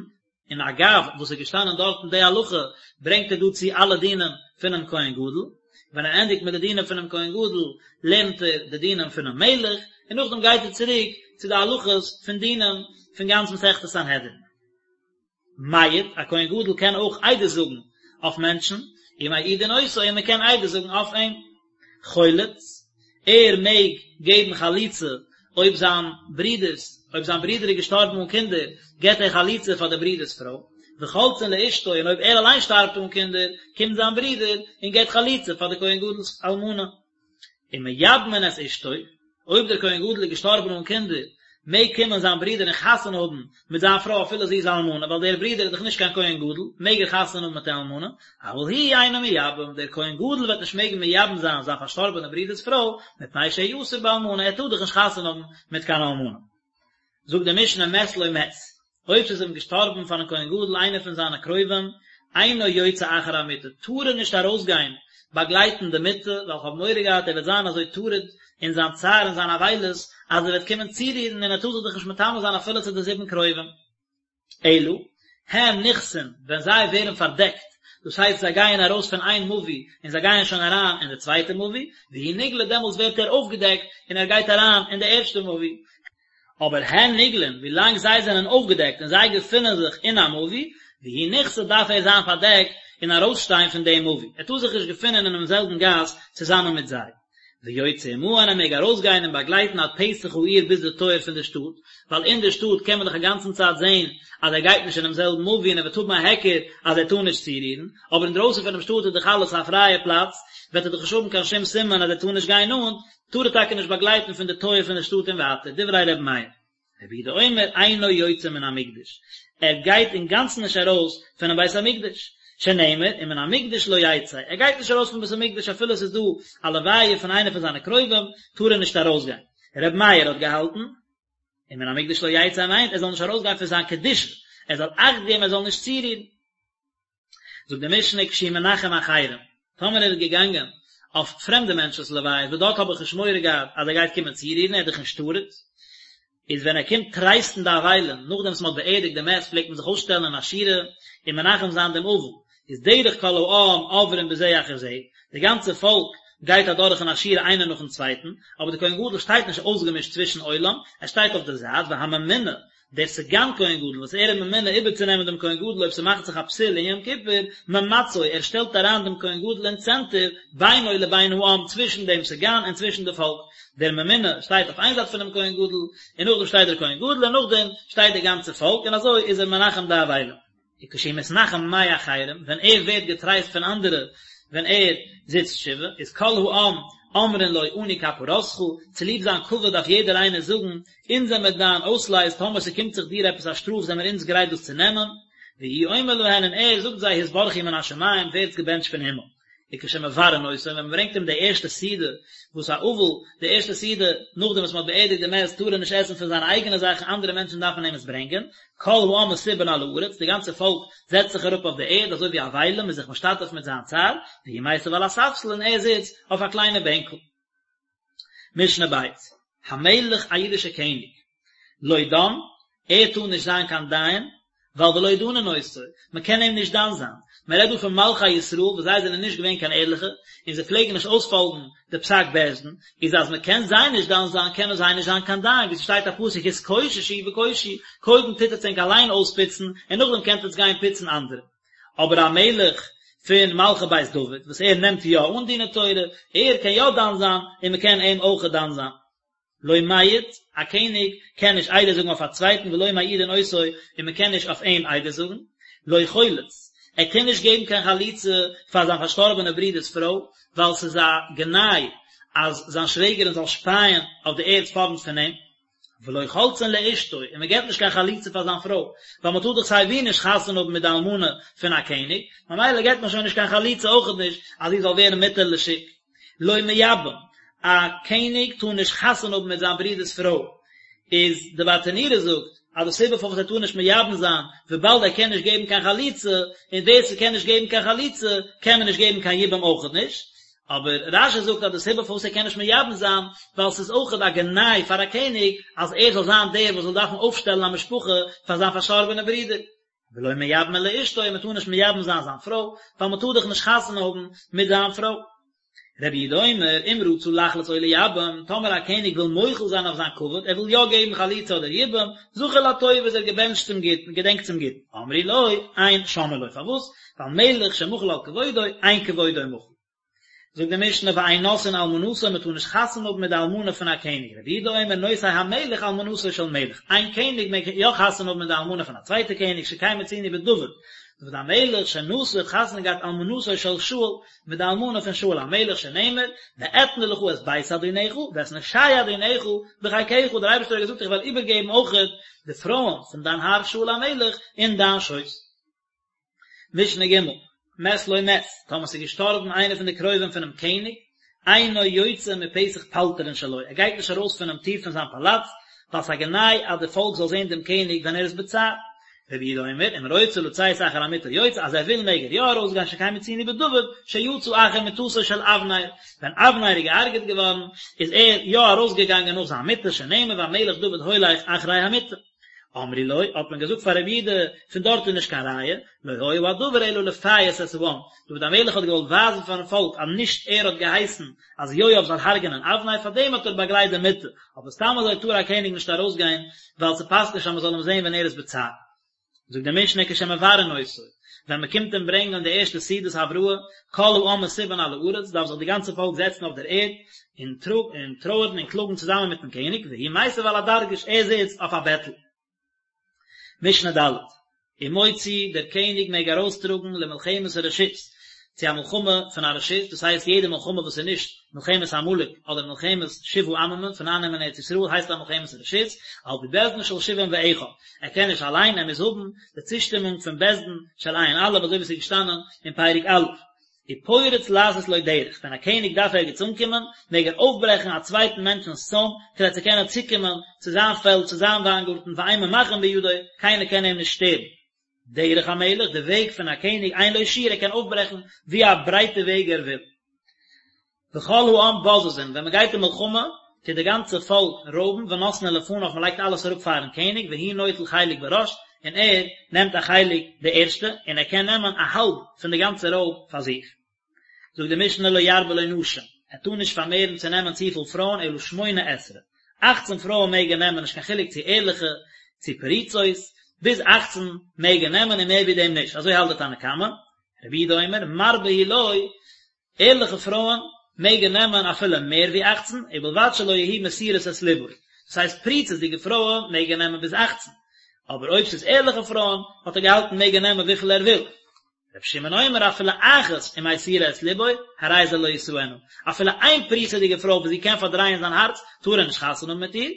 און אגב וואס איז געשטאנען דארטן די הלכה, ברענגט ער דא צו אלע דינים פונעם כהן גדול, ווען ער ענדיגט מיט די דינים פונעם כהן גדול, לערנט ער די דינים פונעם מלך, און נאכדעם גייט ער צוריק צו די הלכות פון דינים פון גאנץ מסכת סנהדרין. מעיד, א כהן גדול קען אויך עדות זאגן אויף מענטשן, ומעידין אותו, און מען קען עדות זאגן אויף אים. חולץ, ער מעג געבן חליצה אויב זיין ברודער'ס, אויב זיין ברודער איז געשטארבן אן קינדער, געבט ער חליצה פאר די ברודער'ס פרוי, וחולצין לאשתו, און אויב ער אליין שטארבט אן קינדער, קומט זיין ברודער און געבט חליצה פאר די כהן גדול'ס אלמנה. ומייבמין את אשתו, אויב דער כהן גדול איז געשטארבן אן קינדער, מעג קומען זיין ברודער און חתונה האבן מיט זיין פרוי אפילו זי איז א אלמנה, ווייל דער ברודער איז דאך נישט קיין כהן גדול, מעג ער חתונה האבן מיט די אלמנה, אבל הוא אינו מייבם, דער כהן גדול וועט נישט מעגן מייבם זיין זיין פארשטארבענע ברודער'ס פרוי, מפני שהוא אסור באלמנה, ער טאר דאך נישט חתונה האבן מיט קיין אלמנה. זאגט די משנה מת לו מת, אויב ס'איז אים געשטארבן פארן כהן גדול איינער פון זיינע קרובים, אינו יוצא אחר המיטה, טאר ער נישט ארויסגיין באגלייטן די מיטה, ווייל כ'האב מורא געהאט ער וועט זיין אזוי טרוד אין זיין צער און זיין אבילות, אז ער וועט קומען צורירן און ער טאר זיך דאך נישט מטמא זיין אפילו צו די זיבן קרובים. אלא, הן נכסין, ווען זיי ווערן פארדעקט, דאס הייסט זיי גייען ארויס פון איין מבוי און זיי גייען שוין אריין אין די צווייטע מבוי, והוא נגלה דעמאלטס ווערט ער אויפגעדעקט און ער גייט אריין אין די ערשטע מבוי, אבער הן נגלין, ווילאנג זיי זענען אויפגעדעקט און זיי געפינען זיך אין א מבוי, והוא נכסה דארף ער זיין פארדעקט און ארויסשטיין פון דעם מבוי, ער טאר זיך נישט געפינען אינעם זעלבן גאס צוזאמען מיט זיי. ויוצא עמהן ער מעג ארויסגיין און באגלייטן עד פתח העיר ביז די טויער פון די שטאט, ווייל אין די שטאט קען מען דאך א גאנצן צייט זען אז ער גייט נישט אינעם זעלבן מבוי און ער וועט האבן א היכר אז ער טאר נישט צורירן, אבער אינדרויסן פונעם שטאט איז דאך אלעס א פרייע פלאץ, וועט ער דאך נישט האבן קיין שום סימן אז ער טאר נישט גיין נאנט, טאר ער טאקע נישט באגלייטן פון די טויער פון די שטאט און ווייטער, דברי ר' מאיר. רבי יהודה אומר אינו יוצא מן המקדש, ער גייט אינגאנצן נישט ארויס פונעם בית המקדש, שנאמר ומן המקדש לא יצא, ער גייט נישט ארויס פון בית המקדש אפילו עס איז דא א לוויה פון איינער פון זיינע קרובים, טאר ער נישט ארויסגיין. רבי מאיר האט געהאלטן, ומן המקדש לא יצא מיינט ער זאל נישט ארויסגיין פון זיין קדושה, ער זאל אכט געבן ער זאל נישט צורירן. זאגט די משנה כשהוא מנחם אחרים, טאמער ער איז געגאנגען אויף פרעמדע מענטשנ'ס לוויות וואס דארט האב איך נישט מורא געהאט אז ער גייט קומען צורירן, ער איז דאך נישט טרוד, איז ווען ער קומט טרייסטן די אבלים, נאכדעם וואס מען האט באערדיגט די מת פלעגט מען זיך אויסשטעלן אין א שורה און מנחם זיין דעם אבל, איז דרך כל העם עוברים בזה אחר זה, די גאנצע פאלק גייט אדורך אין א שורה איינער נאכן צווייטן, אבער דער כהן גדול שטייט נישט אויסגעמישט צווישן עולם, ער שטייט אויף די זייט, והממונה. דער סגן כהן גדול וואס ער איז ממונה איבערצונעמען דעם כהן גדול אויב ס'מאכט זיך א פסול אין יום כיפור, ממצו, ער שטעלט אריין דעם כהן גדול אין צענטער, בינו לבין העם, צווישן דעם סגן און צווישן די פאלק, דער ממונה שטייט אויף איין זייט פונעם כהן גדול, און נאכדעם שטייט דער כהן גדול, און נאכדעם שטייט די גאנצע פאלק, און אזוי איז ער מנחם די אבלים. וכשהוא מתנחם מאחרים, ווען ער ווערט געטרייסט פון אנדערע ווען ער זיצט שבעה, איז כל העם אומרים לו אנו כפרתך, צוליב זיין כבוד דארף יעדער איינער זאגן, אונז זעמיר דיין אויסלייז, טאמער ס'קומט זיך דיר עפעס א שטראף זעמיר אונז גרייט דאס צו נעמען, והוא אומר להן און ער זאגט זיי התברכו מן השמים, ווערטס געבענטשט פון הימל. וכשמברין אותו, ווען מען ברענגט אים די ערשטע סעודה, וואס א אבל, די ערשטע סעודה נאכדעם וואס מען האט באערדיגט די מת, טאר ער נישט עסן פון זיינע אייגענע זאכן, אנדערע מענטשן דארפן אים עס ברענגען, כל העם מסובין על הארץ, די גאנצע פאלק זעצט זיך אראפ אויף די ערד, אזוי ווי אבלים, מ'איז זיך משתתף מיט זיין צער, והוא מיסב על הספסל און ער זיצט אויף א קליינע בענקל. משנה ב', המלך א אידישע קעניג, לא דן, ער טאר נישט זיין קיין דיין, ווייל ולא דנין אותו, מען קען אים נישט דן זיין, מען רעדט דא פון מלכי ישראל וואס זיי זענען נישט געווען קיין ערליכע, און זיי פלעגן נישט אויספאלגן די פסק בית דין, איז אז מען קען זיי נישט דן זיין קענען זיי נישט זיין קיין דיין, ווי ס'שטייט א פסוק התקוששו וקושו, קודם טוט עטס ענק אליין אויספוצן, און נאכדעם קענט עטס גיין פוצן אנדערע. אבער א מלך פון מלכי בית דוד וואס ער נעמט יא אן דיני תורה, ער קען יא דן זיין, און מען קען אים אויך דן זיין. לא מעיד, א קעניג קען נישט עדות זאגן אויף א צווייטן ולא מעידין אותו, און מען קען נישט אויף אים עדות זאגן. לא חולץ, ער קען נישט געבן קיין חליצה פאר זיין פארשטארבענע ברודער'ס פרוי, ווייל ס'איז א גנאי אז זיין שוועגערין זאל שפייען אויף די ערד פארנט פון אים. ולא חולצין לאשתו, און מען געבט נישט קיין חליצה פאר זיין פרוי, ווייל מען טאר דאך סיי ווי נישט חתונה האבן מיט די אלמנה פון א קעניג, ממילא געבט מען שוין נישט קיין חליצה אויכעט נישט אז זי זאל ווערן מותר לשוק. לא מייבם, א קעניג טאר נישט חתונה האבן מיט זיין ברודער'ס פרוי, איז די ברטנורא זאגט אז די סיבה פארוואס ער טאר נישט מייבם זיין, וויבאלד ער קען נישט געבן קיין חליצה, און ווער ס'קען נישט געבן קיין חליצה, קען מען נישט געבן קיין יבום אויכעט נישט, אבער רש"י זאגט אז די סיבה פארוואס ער קען נישט מייבם זיין, ווייל ס'איז אויכעט א גנאי פאר א קעניג אז ער זאל זיין דער וואס זאל דארפן אויפשטעלן א משפחה פאר זיין פארשטארבענע ברודער. ולא מייבמין לאשתו, מען טאר נישט מייבם זיין זיין פרוי, ווייל מען טאר דאך נישט חתונה האבן מיט זיין פרוי. רבי יהודה אומר, אם רצה לחלוץ או לייבם, טאמער א קעניג וויל מוחל זיין אויף זיין כבוד, ער וויל יא געבן חליצה אדער יבום, זכור לטוב איז ער געבענטשט צום גוטן, געדענקט צום גוטן. אמרו לו, אין שומעין לו, פארוואס? ווייל מלך שמחל על כבודו, אין כבודו מחול. זאגט די משנה ואין נושאין אלמנתו מען טאר נישט חתונה האבן מיט די אלמנה פון א קעניג, רבי יהודה אומר נושא המלך אלמנתו של מלך, איין קעניג מעג יא חתונה האבן מיט די אלמנה פון א צווייטע קעניג שכן מצינו בדוד, דוד המלך שנשא האט חתונה געהאט אלמנתו של שאול מיט די אלמנה פון שאול המלך שנאמר ואתנה לך את בית אדונך ואת נשי אדונך בחיקך, דער אייבערשטער האט געזאגט איך וועל איבערגעבן אויכעט די פרויען פון דיין האר שאול המלך אין דיין שויס. משנה ג', מת לו מת, טאמער ס'איז געשטארבן איינער פון די קרובים פונעם קעניג, אינו יוצא מפתח פלטרין שלו, ער גייט נישט ארויס פונעם טיר פון זיין פאלאץ, ווייל ס'איז א גנאי אז די פאלק זאל זען דעם קעניג ווען ער איז בצער. רבי יהודה אומר, אם רוצה לצאת אחר המיטה יוצא, אז ער וויל מעג ער יא ארויסגיין שכן מצינו בדוד, שיצא אחר מיטתו של אבנר, ווען אבנר איז געהארגעט געווארן, איז ער יא ארויסגעגאנגען נאך זיין מיטה, שנאמר והמלך דוד הולך אחרי המיטה. אמרו לו, האט מען געזאגט פאר רבי יהודה, פון דארט איז נישט קיין ראיה, לא היה הדבר אלא לפייס את העם, דוד המלך האט געוואלט ווייזן פארן פאלק אז נישט ער האט געהייסן אז יואב זאל הרג'נען אבנר, פארדעם האט ער באגלייט די מיטה, אבער סתם אזוי טאר א קעניג נישט ארויסגיין, ווייל ס'פאסט נישט אז מ'זאל אים זען ווען ער איז בצער. זאגט די משנה כשמברין אותו, ווען מען קומט אים ברענגען די ערשטע סעודת הבראה, כל העם מסובין על הארץ, דארף זיך די גאנצע פאלק זעצן אויף דער ערד, און טרויערן און קלאגן צוזאמען מיטן קעניג, והוא מיסב על הדרגש, ער זיצט אויף א בעטל. משנה ד', ומוציא, דער קעניג מעג ארויסטראגן למלחמת הרשות, צו א מלחמה פון א רשות, דאס הייסט יעדע מלחמה וואס איז נישט מלחמת עמלק אדער מלחמת שבעה עממים פון אייננעמען ארץ ישראל הייסט א מלחמת רשות, על פי בית דין של שבעים ואחד, ער קען נישט אליין ער מוז האבן די צושטימונג פון בית דין של ע"א אזוי ווי עס איז געשטאנען אין פרק א'. ופורץ לעשות לו דרך, ווען א קעניג דארף ערגעץ אנקומען, מעג ער אויפברעכן א צווייטן מענטשנ'ס צוים, כדי צו קענען צוקומען צו זיין פעלד, צו זיין וויינגארטן, ואין ממחין בידו, קיינער קען אים נישט שטערן. דרך המלך, די וועג פון א קעניג, אין לו שיעור, ער קען אויפברעכן ווי א ברייטע וועג ער וויל. וכל העם בוזזין, ווען מען גייט אין מלחמה, טוט די גאנצע פאלק רויבן, ונותנין לפניו, מען לייגט אלעס אראפ פארן קעניג, והוא נוטל חלק בראש, און ער נעמט א חלק די ערשטע, און ער קען נעמען א האלב פון די גאנצע רויב פאר זיך. זאגט די משנה לא ירבה לו נשים, ער טאר נישט פארמערן צו נעמען צופיל פרויען אלא שמונה עשרה, אכצן פרויען מעג ער נעמען נישט קיין חילוק צו ערליכע. צו פרוצות, ביז אכצן מעג ער נעמען און מער ווי דעם נישט, אזוי האלט די תנא קמא, רבי יהודה אומר, מרבה הוא לו, ערליכע פרויען מעג ער נעמען אפילו מער ווי אכצן, ובלבד שלא יהיו מסירות את לבו, דאס הייסט פריצות'דיגע פרויען מעג ער נעמען ביז אכצן, אבער אויב ס'איז ערליכע פרויען האט ער געהאלטן מעג ער נעמען וויפיל ער וויל. רבי שמעון אומר אפילו אחת אם מסירה את לבו, הרי זה לא ישאנה, אפילו איין פריצות'דיגע פרוי וואס זי קען פארדרייען זיין הארץ, טאר ער נישט חתונה האבן מיט איר.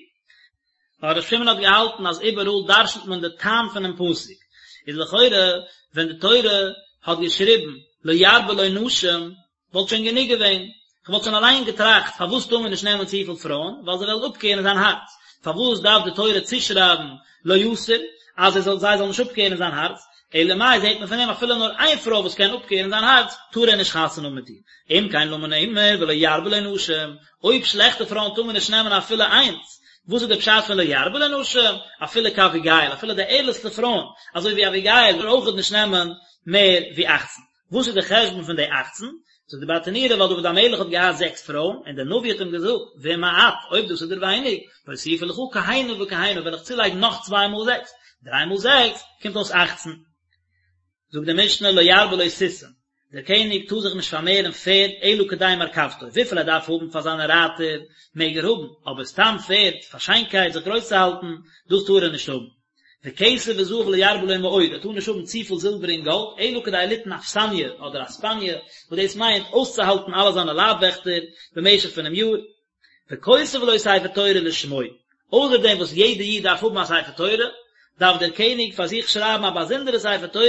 ווייל רבי שמעון האט געהאלטן אז איבעראל דרשנ'ט מען די טעם פונעם פסוק, איז לכאורה ווען די תורה האט געשריבן לא ירבה לו נשים וואלט שוין גענוג געווען, כ'וואלט שוין אליין געטראכט פארוואס טאר מען נישט נעמען צופיל פרויען, ווייל זיי וועלן אפקערן זיין הארץ, פארוואס דארף די תורה צושרייבן לא יסור, אז ער זאל זיי זאלן נישט אפקערן זיין הארץ, אלא מאי זעט מען פון דעם אפילו נאר איין פרוי וואס קען אפקערן זיין הארץ, טאר ער נישט חתונה האבן מיט איר, אם כן למה נאמר ולא ירבה לו נשים, אויב שלעכטע פרויען טאר מען נישט נעמען אפילו איינס, וואס איז די פשט פון לא ירבה לו נשים, אפילו כאביגיל, אפילו די ערליכסטע פרויען, אזוי ווי אביגיל, טאר אויכעט נישט נעמען מער ווי אכצן. וואס איז די חשבון פון די אכצן? זאגט די ברטנורא ווייל דוד המלך האט געהאט זעקס פרויען, און דער נביא האט אים געזאגט, ואם מעט, אויב דאס איז דיר ווייניג, ואוסיפה לך כהנה וכהנה, וועל איך צולייגן נאך צוויי מאל זעקס, דריי מאל זעקס, קומט אויס אכצן. זאגט די משנה לא ירבה לו סוסים, דער קעניג טאר זיך נישט פארמערן פערד אלא כדי מרכבתו, וויפיל ער דארף האבן פאר זיינע רייטער מעג ער האבן, אבער סתם פערד פאר שיינקייט זיך גרויס צו האלטן, דאס טאר ער נישט האבן. וכסף וזהב לא ירבה לו מאוד, ער טאר נישט האבן צופיל זילבער און גאלד, אלא כדי ליתן אכסניא אדער אספניא, וואס דאס מיינט אויסצוהאלטן אלע זיינע לייב-וועכטער במשך פונעם יאר. וכותב לו ספר תורה לשמו, אויסער דעם וואס יעדער איד דארף האבן א ספר תורה, דארף דער קעניג פאר זיך שרייבן א באזונדערע ספר תורה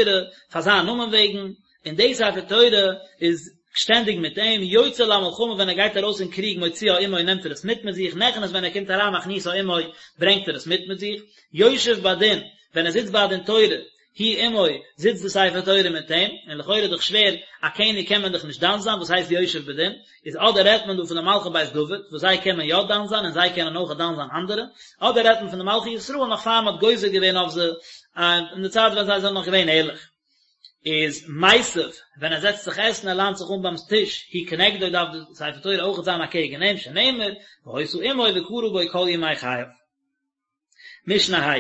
פאר זיין נאמען וועגן, און די ספר תורה איז שטענדיג מיט אים, יוצא למלחמה ווען ער גייט ארויס אין קריג מוציאה עמו נעמט ער עס מיט מיט זיך, נכנס ווען ער קומט אריין מכניסה עמו ברענגט ער עס מיט מיט זיך, יושב בדין ווען ער זיצט ביי א דין תורה היא עמו, זיצט די ספר תורה מיט אים, און לכאורה איז דאך שווער, א קעניג קען מען דאך נישט דן זיין, וואס הייסט יושב בדין? איז אדער רעדט מען דא פון די מלכי בית דוד, וואס זיי קען מען יא דן זיין און זיי קענען אויך דן זיין אנדערע, אדער רעדט מען פון די מלכי ישראל נאך פאר מען האט גוזר געווען אויף זיי, אין די צייט ווען זיי זענען נאך געווען ערליך. איז מיסב, ווען ער זעצט זיך עסן, ער ליינט זיך אן ביים טיש, היא כנגדו דארף די ספר תורה אויכעט זיין אקעגן אים, שנאמר, והיתה עמו וקרא בו כל ימי חייו. משנה ה',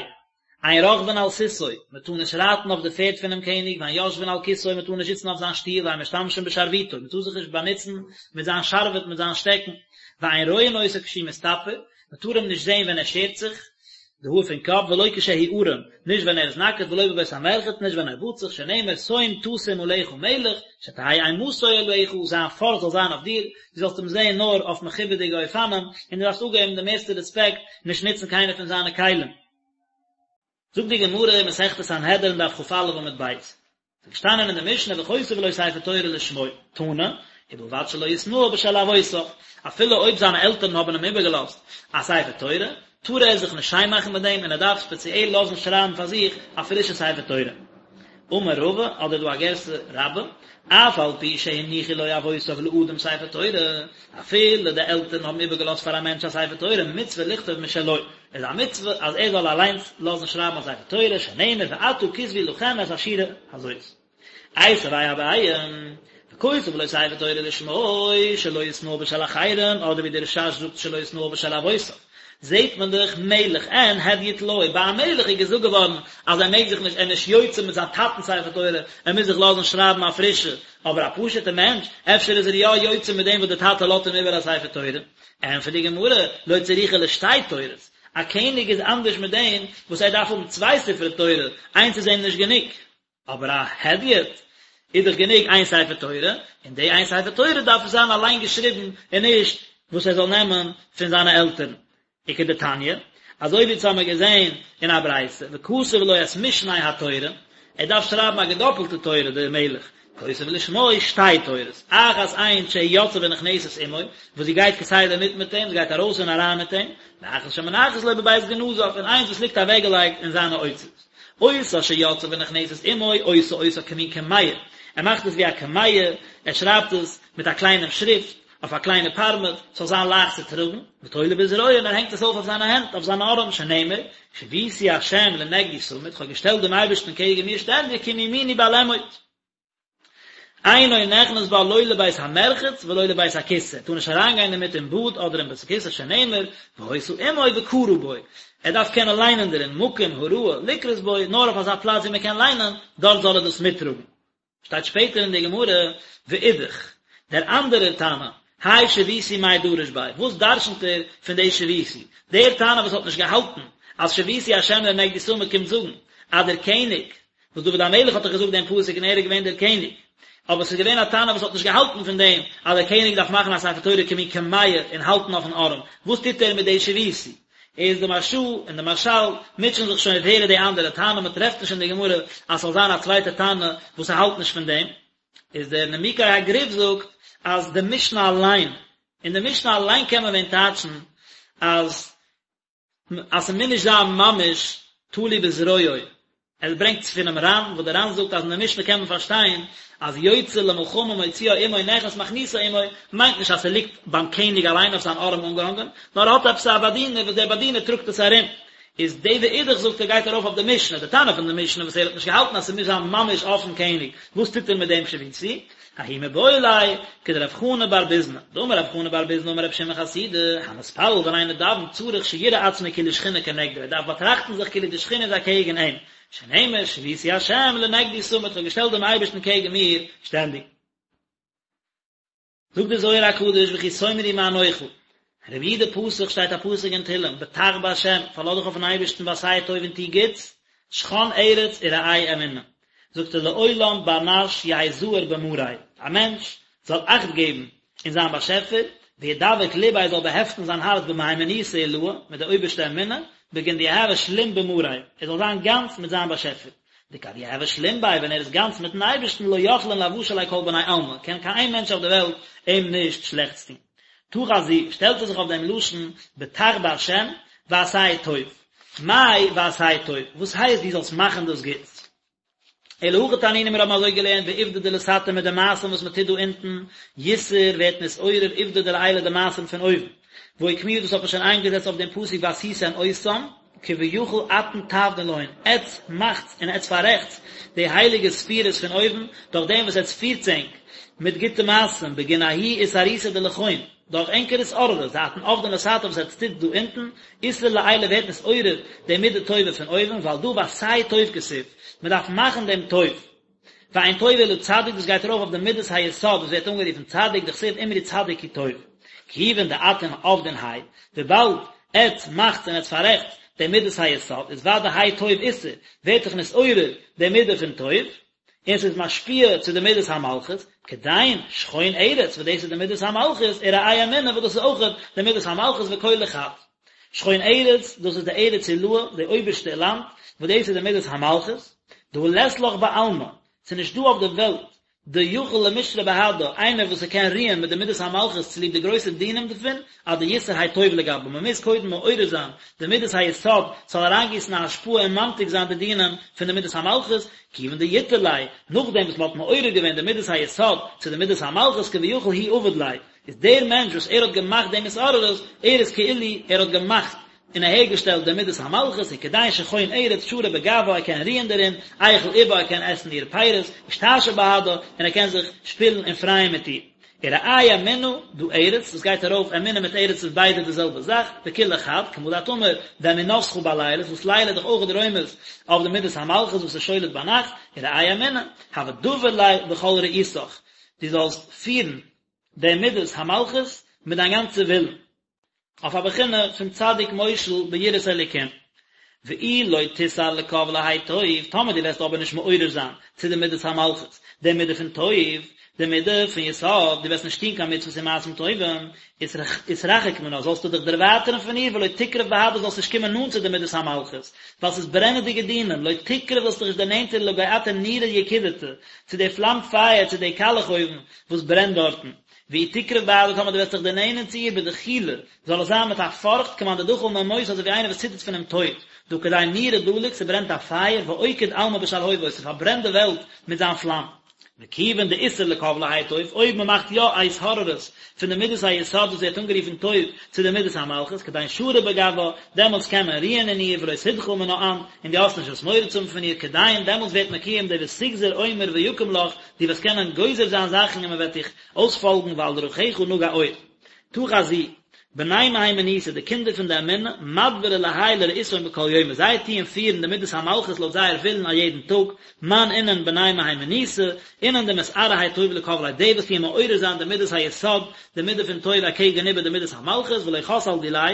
אין רוכבין על סוסו, מען טאר נישט רייטן אויף די פערד פונעם קעניג, ואין יושבין על כסאו, מען טאר נישט זיצן אויף זיין שטוהל, ואין משתמשין בשרביטו, מען טאר זיך נישט באנוצן מיט זיין שרביט, מיט זיין שטעקן, ואין רואין אותו כשהוא מסתפר, מען טאר אים נישט זען ווען ער שערט זיך די האר פון קאפ, ולא כשהוא ערום, נישט ווען ער איז נאקעט, ולא בבית המרחץ, נישט ווען ער באדט זיך, שנאמר, שום תשים עליך מלך, שתהא אימתו עליך, זיין פארכט זאל זיין אויף דיר, דו זאלסט אים זען נאר אויף מכובד'יגע אופנים, און דו דארפסט אפגעבן די מערסטע רעספעקט, נישט נוצן קיינע פון זיינע כלים. זאגט די גמרא אין מסכת סנהדרין דף כ"א עמוד ב', ס'איז געשטאנען אין די משנה וכותב לו ספר תורה לשמו, תנא, ובלבד שלא יתנאה בשל אבותיו, אפילו אויב זיינע עלטערן האבן אים איבערגעלאזט א ספר תורה, טאר ער זיך נישט שיין מאכן מיט דעם און ער דארף ספעציעל לאזן שרייבן פאר זיך א פרישע ספר תורה. אמר רבא, אדער דא א גירסא רבה, אף על פי שהניחו לו אבותיו לאדם ספר תורה, אפילו די עלטערן האבן איבערגעלאזט פאר א מענטש א ספר תורה, מצוה לכתוב משלו, איז א מצוה אז ער זאל אליינס לאזן שרייבן א ספר תורה, שנאמר ועתה כתבו לכם את השירה הזאת. איתיביה אביי, וכותב לו ספר תורה לשמו, שלא יתנאה בשל אחרים, אדער ווי דער רש"ש זאגט שלא יתנאה בשל אבותיו. זעט מען דאך מלך אין הדיוט לא, ביי א מלך איז געזאגט געווארן אז ער מעג זיך נישט, ער איז נישט יוצא מיט זיין טאטנ'ס ספר תורה, ער מוז זיך לאזן שרייבן א פרישע, אבער א פשוט'ע מענטש, אפשר איז ער יא יוצא מיט דעם וואס דער טאטע לאזט אים איבער א ספר תורה. ענטפערט די גמרא, לא צריכא לשתי תורות, א קעניג איז אנדערש מיט דעם וואס ער דארף האבן צוויי ספרי תורה, איינס איז אים נישט גענוג. אבער א הדיוט איז דאך גענוג איין ספר תורה, און די איין ספר תורה דארף עס זיין אליין געשריבן און נישט וואס ער זאל נעמען פון זיינע עלטערן. וכדתניא, אזוי ווי אונז האמיר געזען אין א ברייתא, וכתב לו את משנה התורה, ער דארף שרייבן א געדאפלטע תורה דער מלך, כותב לשמו שתי תורות, אחת איינס שהיא יוצאה ונכנסת עמו, וואס זי גייט כסדר מיט מיט אים, זי גייט ארויס און אריין מיט אים, ואחת שמונחת לו בבית גנזיו, און איינס וואס ליגט אוועקגעלייגט אין זיינע אוצרות. אותה שיוצאה ונכנסת עמו, עושה אותה כמין קמיע, ער מאכט עס ווי א קמיע, ער שרייבט עס מיט א קליינעם שריפט, אויף א קליינע פארמעט, ס'זאל זיין לייכט צו טראגן, ותולה בזרועו, און ער הענגט עס אויף אויף זיינע הענט, אויף זיינע ארעם, שנאמר, שויתי השם לנגדי תמיד, כ'האב געשטעלט דעם אייבערשטן קעגן מיר שטענדיג, כי מימיני בל אמוט. אינו נכנס בה לא לבית המרחץ ולא לבית הכסא, טאר נישט אריינגיין דערמיט אין באד אדער אין בית הכסא שנאמר, והיתה עמו וקרא בו. ער דארף קענען ליינען דערין, מקום הראוי לקרות בו, נאר אויף אזא פלאץ ווי מען קען ליינען, דארט זאל ער דאס מיטטראגן. שטייט שפעטער אין די גמרא, ואידך, דער אנדערער תנא, האי שויתי מאי דריש ביה, וואס דרשנ'ט ער פון די שויתי? דער תנא וואס האט נישט געהאלטן אז שויתי השם לנגדי תמיד קומט זאגן אז דער קעניג, וואס דוד המלך האט דאך געזאגט דעם פסוק און ער איז געווען דער קעניג, אבער ס'איז געווען א תנא וואס האט נישט געהאלטן פון דעם אז דער קעניג דארף מאכן א ספר תורה כמין קמיע און האלטן אויפן ארעם, וואס טוט ער מיט די שויתי? איז די מהרש"א און די מהרש"ל מוטשען זיך שוין ווער איז די אנדערע תנא, מען טרעפט נישט אין די גמרא אז ס'זאל זיין א צווייטע תנא וואס האלט נישט פון דעם, איז דער נימוקי הגרי"ב זאגט אז די משנה אליין, אין די משנה אליין קען מען ווען טייטשן אז אז ס'מוז נישט זיין ממש תלוי בזרועו, ער ברענגט פונעם ר"ן, וואס דער ר"ן זאגט אז אין די משנה קען מען פארשטיין אז יוצא למלחמה מוציאה עמו נכנס מכניסה עמו, מיינט נישט אז ס'ליגט ביים קעניג אליין אויף זיין ארעם אנגעהאנגען, נאר ער האט עפעס א באדינער וואס דער באדינער טראגט עס ארום. איז די ואידך זאגט ער גייט ארויף אויף די משנה, די תנא פון די משנה וואס ער האט נישט געהאלטן אז ס'מוז זיין ממש אויפן קעניג, וואס טוט ער מיט דעם שויתי? ההוא מיבעי ליה, כדרב חנא בר ביזנא, דאמר רב חנא בר ביזנא אמר רבי שמעון חסידא, המתפלל ווען איינער דאווענט צריך שיראה עצמו כאילו שכינה כנגדו, ער דארף באטראכטן זיך כאילו די שכינה איז אקעגן אים, שנאמר שויתי השם לנגדי תמיד, כ'האב געשטעלט דעם אייבערשטן קעגן מיר שטענדיג. זאגט דער זוהר הקדוש וכי תאמרו מה נאכל, רבי יהודה פתח שטייט א פסוק אין תהלים, בטח בה', פארלאז דיך אויפן אייבערשטן ועשה טוב און טו גוטס, שכון ארץ ורעה אמונה, זאגט ער לעולם בר נש יהא זהיר במאריה, א מענטש זאל אכט געבן אין זיין באשעפער, וידבק לביה זאל באהעפטן זיין הארץ במהימנותא עילאה, מיט די אויבערשטע אמונה, בגין דיהוי שלים במאריה, ער זאל זיין גאנץ מיט זיין באשעפער. דכד יהוי שלים ביה ווען ער איז גאנץ מיטן אייבערשטן לא יכלין לאוושא ליה כל בני עלמא, קען קיין איין מענטש אויף די וועלט אים נישט שלעכטס טון. תא חזי, שטעלט ער זיך אויף דעם לשון בטח בהשם ועשה טוב. מאי ועשה טוב? וואס הייסט דו זאלסט מאכן דאס גוטס? אלא הכי תנינא מיר האבן אזוי געלערנט בעובדא דלתתא מיט די מעשים וואס מען טוט דא אונטן, יתער ווערט נתעורר עובדא דלעילא די מעשים פון אויבן. והא אוקמוה דאס האט מען שוין איינגעזעצט אויף דעם פסוק ועשיתם אותם, כביכול אתון תעבדון להון, עטץ מאכטס און עטץ פאררעכטס די הייליגע ספירות פון אויבן, דורך דעם וואס עטץ פירטס ענק מיט גוטע מעשים, בגין ההוא אתערותא דלכון, דורך ענקער התעוררות, דאתון עבדין לתתא וואס עטץ טוטס דא אונטן, אתער לעילא ווערט נתעורר די מידה טובה פון אויבן, ועל דא ועשה טוב כתיב, מען דארף מאכן דעם טוב. ואין טוב אלא צדיק דאס גייט ארויף אויף די מידת היסוד וואס ווערט אנגערופן צדיק דכתיב אמרו צדיק כי טוב. כיוון דאתון עבדין האי, וויבאלד עטץ מאכטס און עטץ פאררעכטס די מידת היסוד איז ודאי האי טוב אתער, ווערט דאך נתעורר די מידה פון טוב, און ס'איז משפיע צו די מידת המלכות, כדין שכון ארץ וואס דאס איז די מידת המלכות, ורעה אמונה וואס דאס איז אויכעט די מידת המלכות וכולא חד. שכון ארץ, דאס איז די ארץ עילאה, די אויבערשטע לאנד, וואס דאס איז די מידת המלכות, דהא לית לך בעלמא, ס'איז נישט דא אויף די וועלט, דיכול למשרי בהדה, איינער וואס ס'קען רוען מיט די מידת המלכות צוליב די גרויסע דינים דערפון, עד דיתער האי טוב לגבה, מ'מוז קודם מעורר זיין די מידת היסוד, ס'זאל אריינגיסן א השפעה און ממתיק זיין די דינים פון די מידת המלכות, כיוון דיתער ליה, נאכדעם וואס מ'האט מעורר געווען די מידת היסוד צו די מידת המלכות כביכול הוא עביד ליה, איז דער מענטש וואס ער האט געמאכט דעם התעוררות, ער איז כאילו ער האט געמאכט און אהערגעשטעלט די מידת המלכות, וכדין שכון ארץ שרי בגוה ער קען רוען דערין, איכול איבה ער קען עסן אירע פירות, אשתעשע בהדה, און ער קען זיך שפילן און פרייען מיט איר. ורעה אמונה, דא ארץ, דאס גייט ארויף, אמונה מיט ארץ איז ביידע די זעלבע זאך, וכולא חד, כמה דאת אמר, ואמונתך בלילות, וואס לילה איז דאך אויך רומז אויף די מידת המלכות וואס איז שולט ביינאכט, ורעה אמונה, הוה דבר ליה בכל רעותך, דו זאלסט פירן די מידת המלכות מיט דיין גאנצע ווילן, אויף א בחינה פון צדיק מושל ביראת אלוקים. ואי לא תתער לקו להאי טוב, טאמער דו וועסט אבער נישט מעורר זיין צו די מידת המלכות, די מידה פון טוב, די מידה פון יסוד, דו וועסט נישט טון קיין מצוות און מעשים טובים, אתרחק מנה, זאלסטו דיך דערווייטערן פון איר, ולא תקרב בהדה, זאלסט נישט קומען נאנט צו די מידת המלכות, ווייל ס'איז ברענעדיגע דינים, לא תקרב זאלסט דיך נישט דערנענטערן לגוא נורא יקידתא, צו די פלאם פייער, צו די קאלעך אויוון, וואס ברענט דארטן. ואי תקרב בהדה טאמער דו וועסט זיך דערנענען צו איר בדחילו, זאל עס זיין מיט א פארכט כמאן דדחיל ממותא אזוי ווי איינער וואס ציטערט פונעם טויט, דהא כדין נורא דליק ס'ברענט א פייער ואוקיד עלמא בשלהובוי ס'פארברענט די וועלט מיט זיין פלאם. וכיוון דאתער לקו להאי טוב, אויב מען מאכט יא א התעוררות פון די מידת היסוד וואס ווערט אנגערופן טוב צו די מידת המלכות, כדין שרי בגוה, דעמאלטס קען מען רוען אין איר ולא תדחיל מנה אנת, און דו האסט נישט וואס מורא צו האבן פון איר, כדין דעמאלטס ווערט מקוים די ותגזר אומר ויקם לך, דו וועסט קענען גוזר זיין זאכן און מען וועט דיך אויספאלגן ועל דרכיך נגה אור. תא חזי. בני מהימנותא, די קינדער פון די אמונה, מדברי להאי לרעותהון בכל יומא, זיי טוען פירן די מידת המלכות לויט זייער ווילן א יעדן טאג, מאן אינון בני מהימנותא, אינון דמתערי האי טוב לקבליה, די וואס טוען מעורר זיין די מידת היסוד, די מידה פון טוב אקעגן איבער די מידת המלכות, ולא חס על דיליה,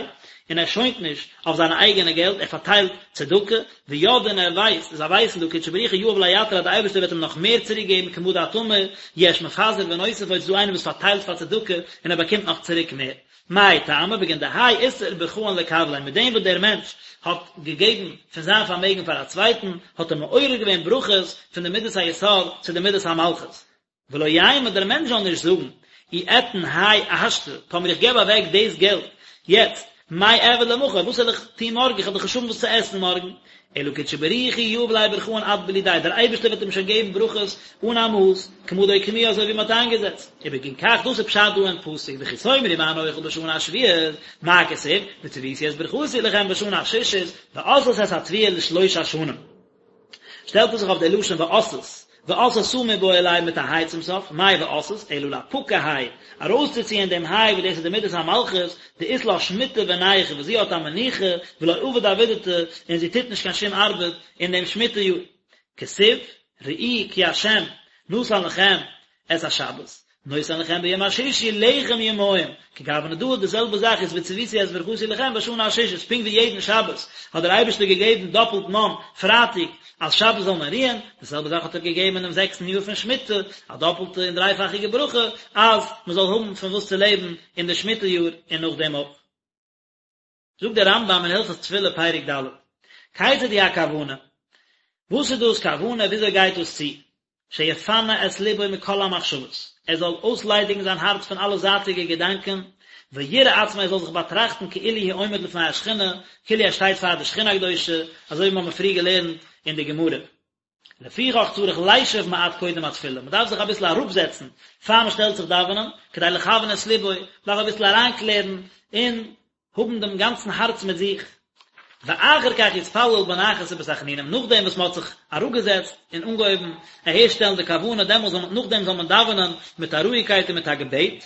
און ער שוינט נישט אויף זיינע אייגענע געלט, ער פארטיילט צדקה, וידעי און ער ווייסט, זיי ווייסן דהא קודשא בריך הוא יהיב ליה יתיר אז די אייבערשטער וועט אים נאך מער צוריק געבן כמה דאת אמר, יש מפזר ונוסף עוד ס'איז דא איינער וואס פארטיילט פאר צדקה און ער באקומט נאך צוריק מער. מאי טעמא בגין דהאי אתער ברכאן לקבליה מיט דעם וואס דער מענטש האט געגעבן פון זיין פארמעגן פאר א צווייטן האט ער מעורר געווען ברכות פון די מידת היסוד צו די מידת המלכות. ולא יימא דער מענטש זאל נישט זאגן, אי אתן האי השתא, טאמער איך געב אוועק דאס געלט יעצט, מאי אעביד למחר, וואס וועל איך טון מארגן, איך וועל דאך נישט האבן וואס צו עסן מארגן, אלא קודשא בריך הוא יהיב ליה ברכאן עד בלי די, דער אייבערשטער וועט אים שוין געבן ברכות אן א מאס, כמה דאוקמוה אזוי ווי מען האט איינגעזעצט. ובגין כך דאס איז פשט דא אין פסוק וכי תאמרו מה נאכל בשנה השביעית, מה כתיב, וצויתי את ברכתי לכם בשנה השישית, ועשתה את התבואה לשלוש השנים. שטעלט ער זיך אויף די לשון ועשת, ועשתה מיבעי ליה מיט א היי צום סוף, מאי ועשת, אלא לאפקא האי, ארויסצוציען דעם היי וואס דאס איז די מידת המלכות, דאית לה שמיטה ונייחא וואס זי האט א מנוחה, ולא עביד עבידתא, און זי טוט נישט קיין שום ארבעט אין דעם שמיטה יאר. כתיב, ראו כי ה' נתן לכם את השבת, נותן לכם ביום השישי לחם יומיים, כגוונא דא די זעלבע זאך איז וצויתי את ברכתי לכם בשנה השישית, פונקט ווי יעדן שבת האט דער אייבערשטער געגעבן דאפלט מן פרייטאג אז שבת זאל מען רוען, די זעלבע זאך האט ער געגעבן אינעם זעקסטן יאר פון שמיטה, א דאפלטע און דרייפאכיגע ברכה אז מען זאל האבן פון וואס צו לעבן אין די שמיטה יאר און נאכדעם אויך. זאגט דער רמב"ם אין הלכות תפילה פרק ד', כיצד היא הכוונה? וואס איז דאס כוונה? וויאזוי גייט דאס צו? שיפנה את לבו מכל המחשבות, ער זאל אויסליידיגן זיין הארץ פון אלע זייטיגע געדאנקען, ויראה עצמו ער זאל זיך באטראכטן כאילו הוא עומד לפני השכינה, כאילו ער שטייט פאר די שכינה הקדושה, אזוי ווי מיר האבן פריער געלערנט אין די גמרא. לפיכך צריך לישב מעט קודם התפילה, מען דארף זיך אביסל אראפזעצן פאר מען שטעלט זיך דאווענען, כדי לכוון את לבו, מען דארף אביסל אריינקלערן און האבן דעם גאנצן הארץ מיט זיך, ואחר כך יתפלל בנחת ובתחנונים, נאכדעם וואס מען האט זיך אראפגעזעצט און אנגעהויבן אהערשטעלן די כוונה, דעמאלס זאל מען, נאכדעם זאל מען דאווענען מיט א רואיגקייט און מיט א געבעט.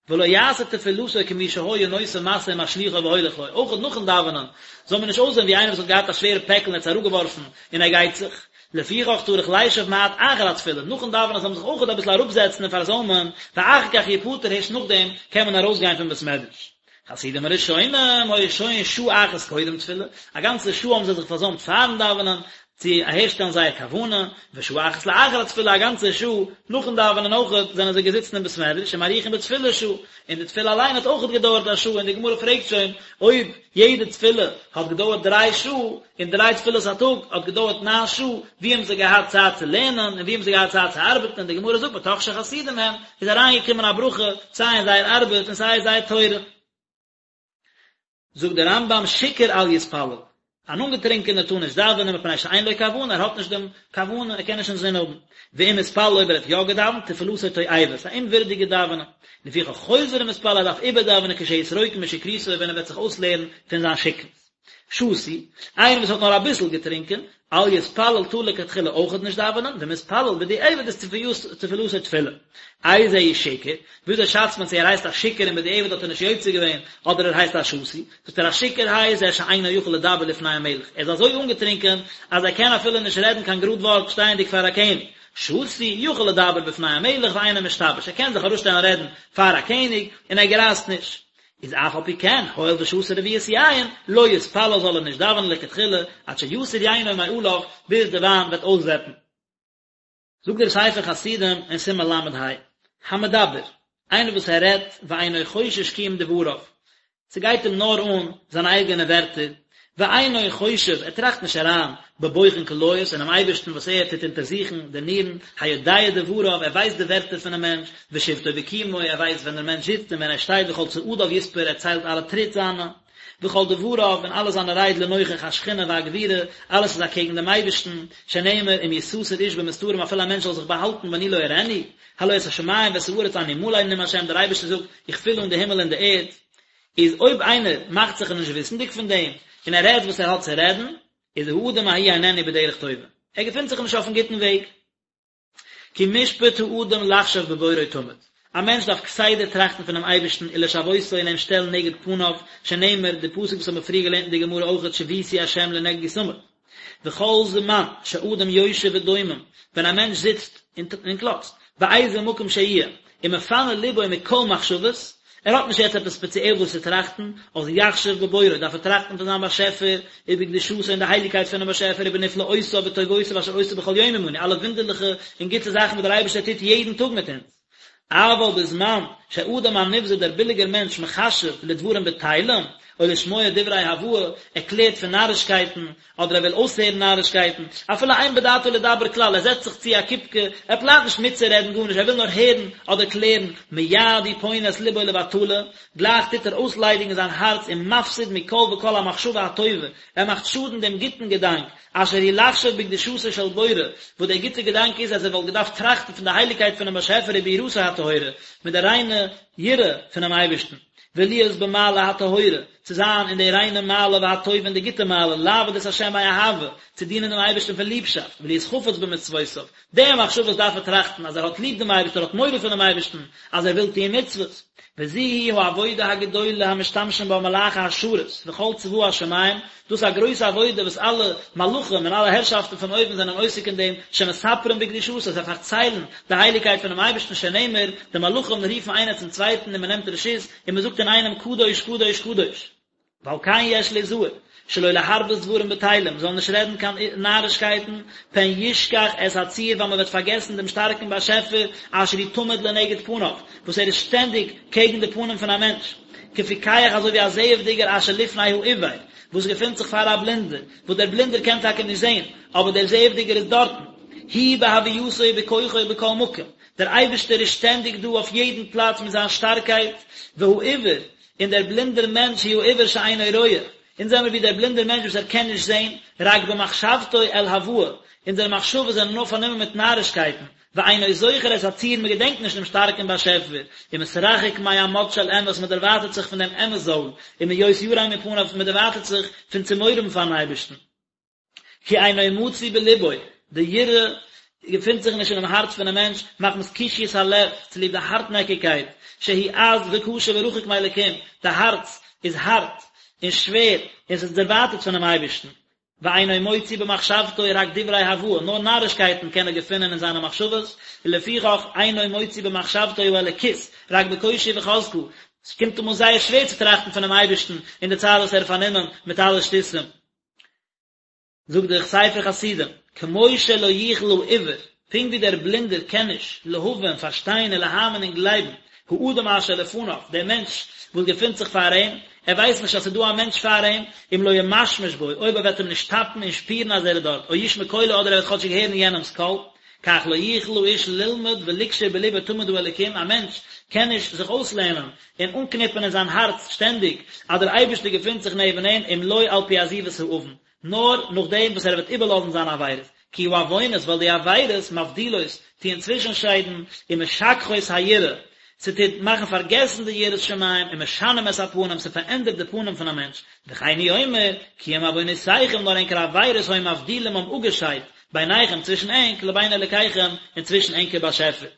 ולא יעשה תפילתו כמי שהיה נושא משא ומשליכו והולך לו, אויך נאכן דאווענען זאל מען נישט אויסזען ווי איינער וואס האט געהאט א שווערע פעקל און האט עס אראפגעווארפן און ער גייט זיך, לפיכך צריך לישב מעט אחר התפילה, נאכן דאווענען זאל מען זיך אויך אביסל אראפזעצן און פארזוימען, ואחר כך יפטר הערשט נאכדעם קען מען ארויסגיין פון בית מדרש. חסידים הראשונים היו שוהין שעה אחת קודם תפילה, א גאנצע שעה האבן זיי זיך פארזוימט פארן דאווענען, צו אהערשטעלן זייער כוונה, ושעה אחת לאחר התפילה א גאנצע שעה נאכן דאווענען אויכעט זענען זיי געזיצן אין בית מדרש ומאריכין בתפילה שעה, און די תפילה אליין האט אויכעט געדויערט א שעה, און די גמרא פרעגט שוין אויב יעדע תפילה האט געדויערט דריי שעה, און דריי תפילות א טאג האט געדויערט ניין שעה, ווי האבן זיי געהאט צייט צו לערנען, און ווי האבן זיי געהאט צייט צו ארבעטן, און די גמרא זאגט מתוך שחסידים הם, איז אריינגעקומען א ברכה סיי אין זייער ארבעט און סיי אין זייער תורה. זאגט דער רמב"ם שיכור אל יתפלל, אן אנגעטרינקענער טאר נישט דאווענען מפני שאין לו כוונה, ער האט נישט דעם כוונה, ער קען נישט אינזין האבן, ואם התפלל אויב ער האט יא געדאווענט, תפילתו תועבה, ס'איז א אומווירדיגע דאווענען, לפיכך חוזר ומתפלל ער דארף איבערדאווענען כשיתרוקן משכרותו ווען ער וועט זיך אויסלערן פון זיין שכרות. שתוי, איינער וואס האט נאר אביסל געטרינקען, אל יתפלל טאר לכתחילה אויכעט נישט דאווענען, ואם התפלל בדיעבד איז תפילתו תפילה. איזהו שיכור, וויאזוי שאצט מען צו ער הייסט א שיכור און בדיעבד האט ער נישט יוצא געווען, אדער ער הייסט א שתוי? זאגט ער א שיכור הייסט זה שאינו יכול לדבר לפני המלך, ער איז אזוי אנגעטרינקען אז ער קען אפילו נישט רעדן קיין גראד ווארט שטייענדיג פאר א קעניג. שתוי, יכול לדבר בפני המלך ואינו משתבש, ער קען זיך אראפשטעלן רעדן פאר א קעניג און ער גרייזט נישט. איז אף על פי כן, הואיל ושתה רביעית יין, לא יתפלל זאל ער נישט דאווענען לכתחילה, עד שיסור יינו מעליו, ביז די וויין וועט אויסוועפן. זאגט דער ספר חסידים אין סימן ל"ה, המדבר, איינער וואס ער רעדט ואינו חושש קיום דבריו, ס'גייט אים נאר אן זיינע אייגענע ווערטער, ואינו חושב, ער טראכט נישט אריין, בבוחן כליות, אינעם אייבערשטן וואס ער טוט אונטערזוכן די נירן, היודע דבריו, ער ווייסט די ווערטער פונעם מענטש, ושבתו וקומו, ער ווייסט ווען דער מענטש זיצט און ווען ער שטייט וכל צעדיו יספור, ער ציילט אלע טריט זיינע, וכל דבריו, און אלע זיינע רייד לנוכח השכינה והגבורה, אלעס איז אקעגן דעם אייבערשטן, שנאמר, אם יסתר איש במסתרים אפילו א מענטש זאל זיך באהאלטן ואני לא אראנו, הלא את השמים ואת הארץ אני מלא נאם השם, דער אייבערשטער זאגט, איך פיל אן די הימל און די ערד. איז אויב איינער מאכט זיך נישט וויסנדיג פון דעם, און ער רעדט וואס ער האט צו רעדן, איז האדם ההוא איננו בדרך טובה, ער געפינט זיך נישט אויפן גוטן וועג. כי משפט האדם לחשוב בבוראו תמיד, א מענטש דארף כסדר טראכטן פונעם אייבערשטן ולשוותו און אים שטעלן נגד פניו, שנאמר, די פסוק וואס האבן מיר פריער געלערנט אין די גמרא אויכעט שויתי השם לנגדי תמיד. וכל זמן שאדם יושב ודומם, ווען א מענטש זיצט און קלאצט, באיזה מקום שיהיה, ומפנה לבו מכל מחשבות, ער האט נישט יעצט עפעס ספעציעל וואס צו טראכטן, אז יחשוב בבוראו, דארף ער טראכטן פון זיין באשעפער, ובקדושתו און די הייליגקייט פונעם באשעפער, ובנפלאותיו וטובותיו אשר עושה בכל יום עמנו, אלע וואונדערליכע און גוטע זאכן וואס דער אייבערשטער טוט יעדן טאג מיט אונז. אבל בזמן שהאדם הנבזה דער ביליגער מענטש מחשב לדברים בטלים, או לשמוע דברי הבאי, ער קלערט פון נארישקייטן, אדער ער וויל אויסהערן נארישקייטן, אפילו אין בדעתו לדבר כלל, ער זעצט זיך צו א קופקע, ער פלאנט נישט מיטצורעדן גארנישט, ער וויל נאר הערן אדער קלערן, מיד הוא פונה את לבו לבטלה, גלייך טוט ער אויסליידיגן זיין הארץ ומפסיד מכל וכל המחשבה הטובה, ער מאכט שאדן דעם גוטן געדאנק, אשר היא לחשוב בקדושתו של בורא, וואס דער גוטער געדאנק איז אז ער וואלט געדארפט טראכטן פון די הייליגקייט פונעם באשעפער וביראתו הטהורה, מיט די ריינע יראה פונעם אייבערשטן, ולהיות במעלה הטהורה, צו זיין אין די ריינע מעלה והטובה און די גוטע מעלה, לעבוד את השם מאהבה, צו דינען דעם אייבערשטן פון ליבשאפט, ולהיות חפץ במצוותיו, די מחשבות דארף ער טראכטן, אז ער האט ליב דעם אייבערשטן, ער האט מורא פונעם אייבערשטן, אז ער וויל טוען מצוות. וזו היא העבודה הגדולה המשתמשים בה מלאכי השרת וכל צבא השמים, דאס איז א גרויסע עבודה וואס אלע מלאכים און אלע הערשאפטן פון אויבן זענען עוסק אין דעם, שמספרים בקדושתו, זיי פארציילן די הייליגקייט פונעם אייבערשטן שנאמר, די מלאכים רופן איינער צום צווייטן און מען נעמט רשות, און מען זאגט אינאיינעם קדוש קדוש קדוש. ועל כן יש ליזהר, שלא להרבות דברים בטלים, מען זאל נישט רעדן קיין נארישקייטן, פן ישכח את הצור ווייל מען וועט פארגעסן דעם שטארקן באשעפער אשר הוא תמיד לנגד פניו, וואס ער איז שטענדיג קעגן די פנים פון א מענטש, כפיקח אזוי ווי א זעעוודיגער אשר לפני העיוור, וואס געפינט זיך פאר א בלינדער, וואס דער בלינדער קען טאקע נישט זען, אבער דער זעעוודיגער איז דארטן, הוא בהווייתו ובכוחו בכל מקום, דער אייבערשטער איז שטענדיג דא אויף יעדן פלאץ מיט זיין שטארקייט, והעיוור, און דער בלינדער מענטש הוא העיוור שאינו רואה, אונז זעמיר ווי דער בלינדער מענטש וואס ער קען נישט זען, רק במחשבתו אל הבאי, אונזערע מחשבות זענען נאר פארנומען מיט נארישקייטן, ואינו זוכר את הצור מען געדענקט נישט דעם שטארקן באשעפער, ומתרחק מעמוד של אמת מען דערווייטערט זיך פון דעם אמת זויל, ומהיות ירא מפניו מען דערווייטערט זיך פון צו מורא האבן פארן אייבערשטן. כי אינו מצוי בלבו, די יראה געפינט זיך נישט אינעם הארץ פונעם מענטש, מחמת קשיות הלב, צוליב די הארטנעקיגקייט, שהוא עז וקשה ורחוק מאלקים, די הארץ איז הארט און שווער און ס'איז דערווייטערט פונעם אייבערשטן. ואינו מוציא במחשבתו רק דברי הבאי, נאר נארישקייטן קען ער געפינען אין זיינע מחשבות, ולפיכך אינו מוציא במחשבתו האלוקית, רק בקושי וחזקה, ס'קומט אים אן זייער שווער צו טראכטן פונעם אייבערשטן אין די צייט וואס ער איז פארנומען מיט אלע שטותים. זאגט דער ספר חסידים, כמו שלא יוכל העיוור, פונקט ווי דער בלינדער קען נישט, להבין, פארשטיין ולהאמין און גלייבן, האדם אשר לפניו, דער מענטש וואס געפינט זיך פאר אים, ער ווייסט נישט אז ס'איז דא א מענטש פאר אים, אם לא ימשמש בו, אויב ער וועט אים נישט טאפן און שפירן אז ער איז דארט, או ישמע קולו אדער ער וועט כאטשיג הערן יענעמ'ס קול, כך לא יוכל האיש ללמוד ולקשור בלבו תמיד האלוקים, א מענטש קען נישט זיך אויסלערנען און אנקניפן אין זיין הארץ שטענדיג אז דער אייבערשטער געפינט זיך נעבן אים, אם לא על פי עזיבת העוון, נאר נאכדעם וואס ער וועט איבערלאזן זיינע עבירות, כי העוונות, ווייל די עבירות, מבדילות, טוען צווישנשיידן, ומשכחות היראה, ס'טוט מאכן פארגעסן די יראת שמים, ומשנים את הפנים, ס'פארענדערט די פנים פון א מענטש, וכן הוא אומר, כי אם עוונותיכם, נאר ענקער עבירות היו מבדילים האבן אפגעשיידט, ביניכם, צווישן ענק, לבין אלוקיכם, און צווישן ענקער באשעפער.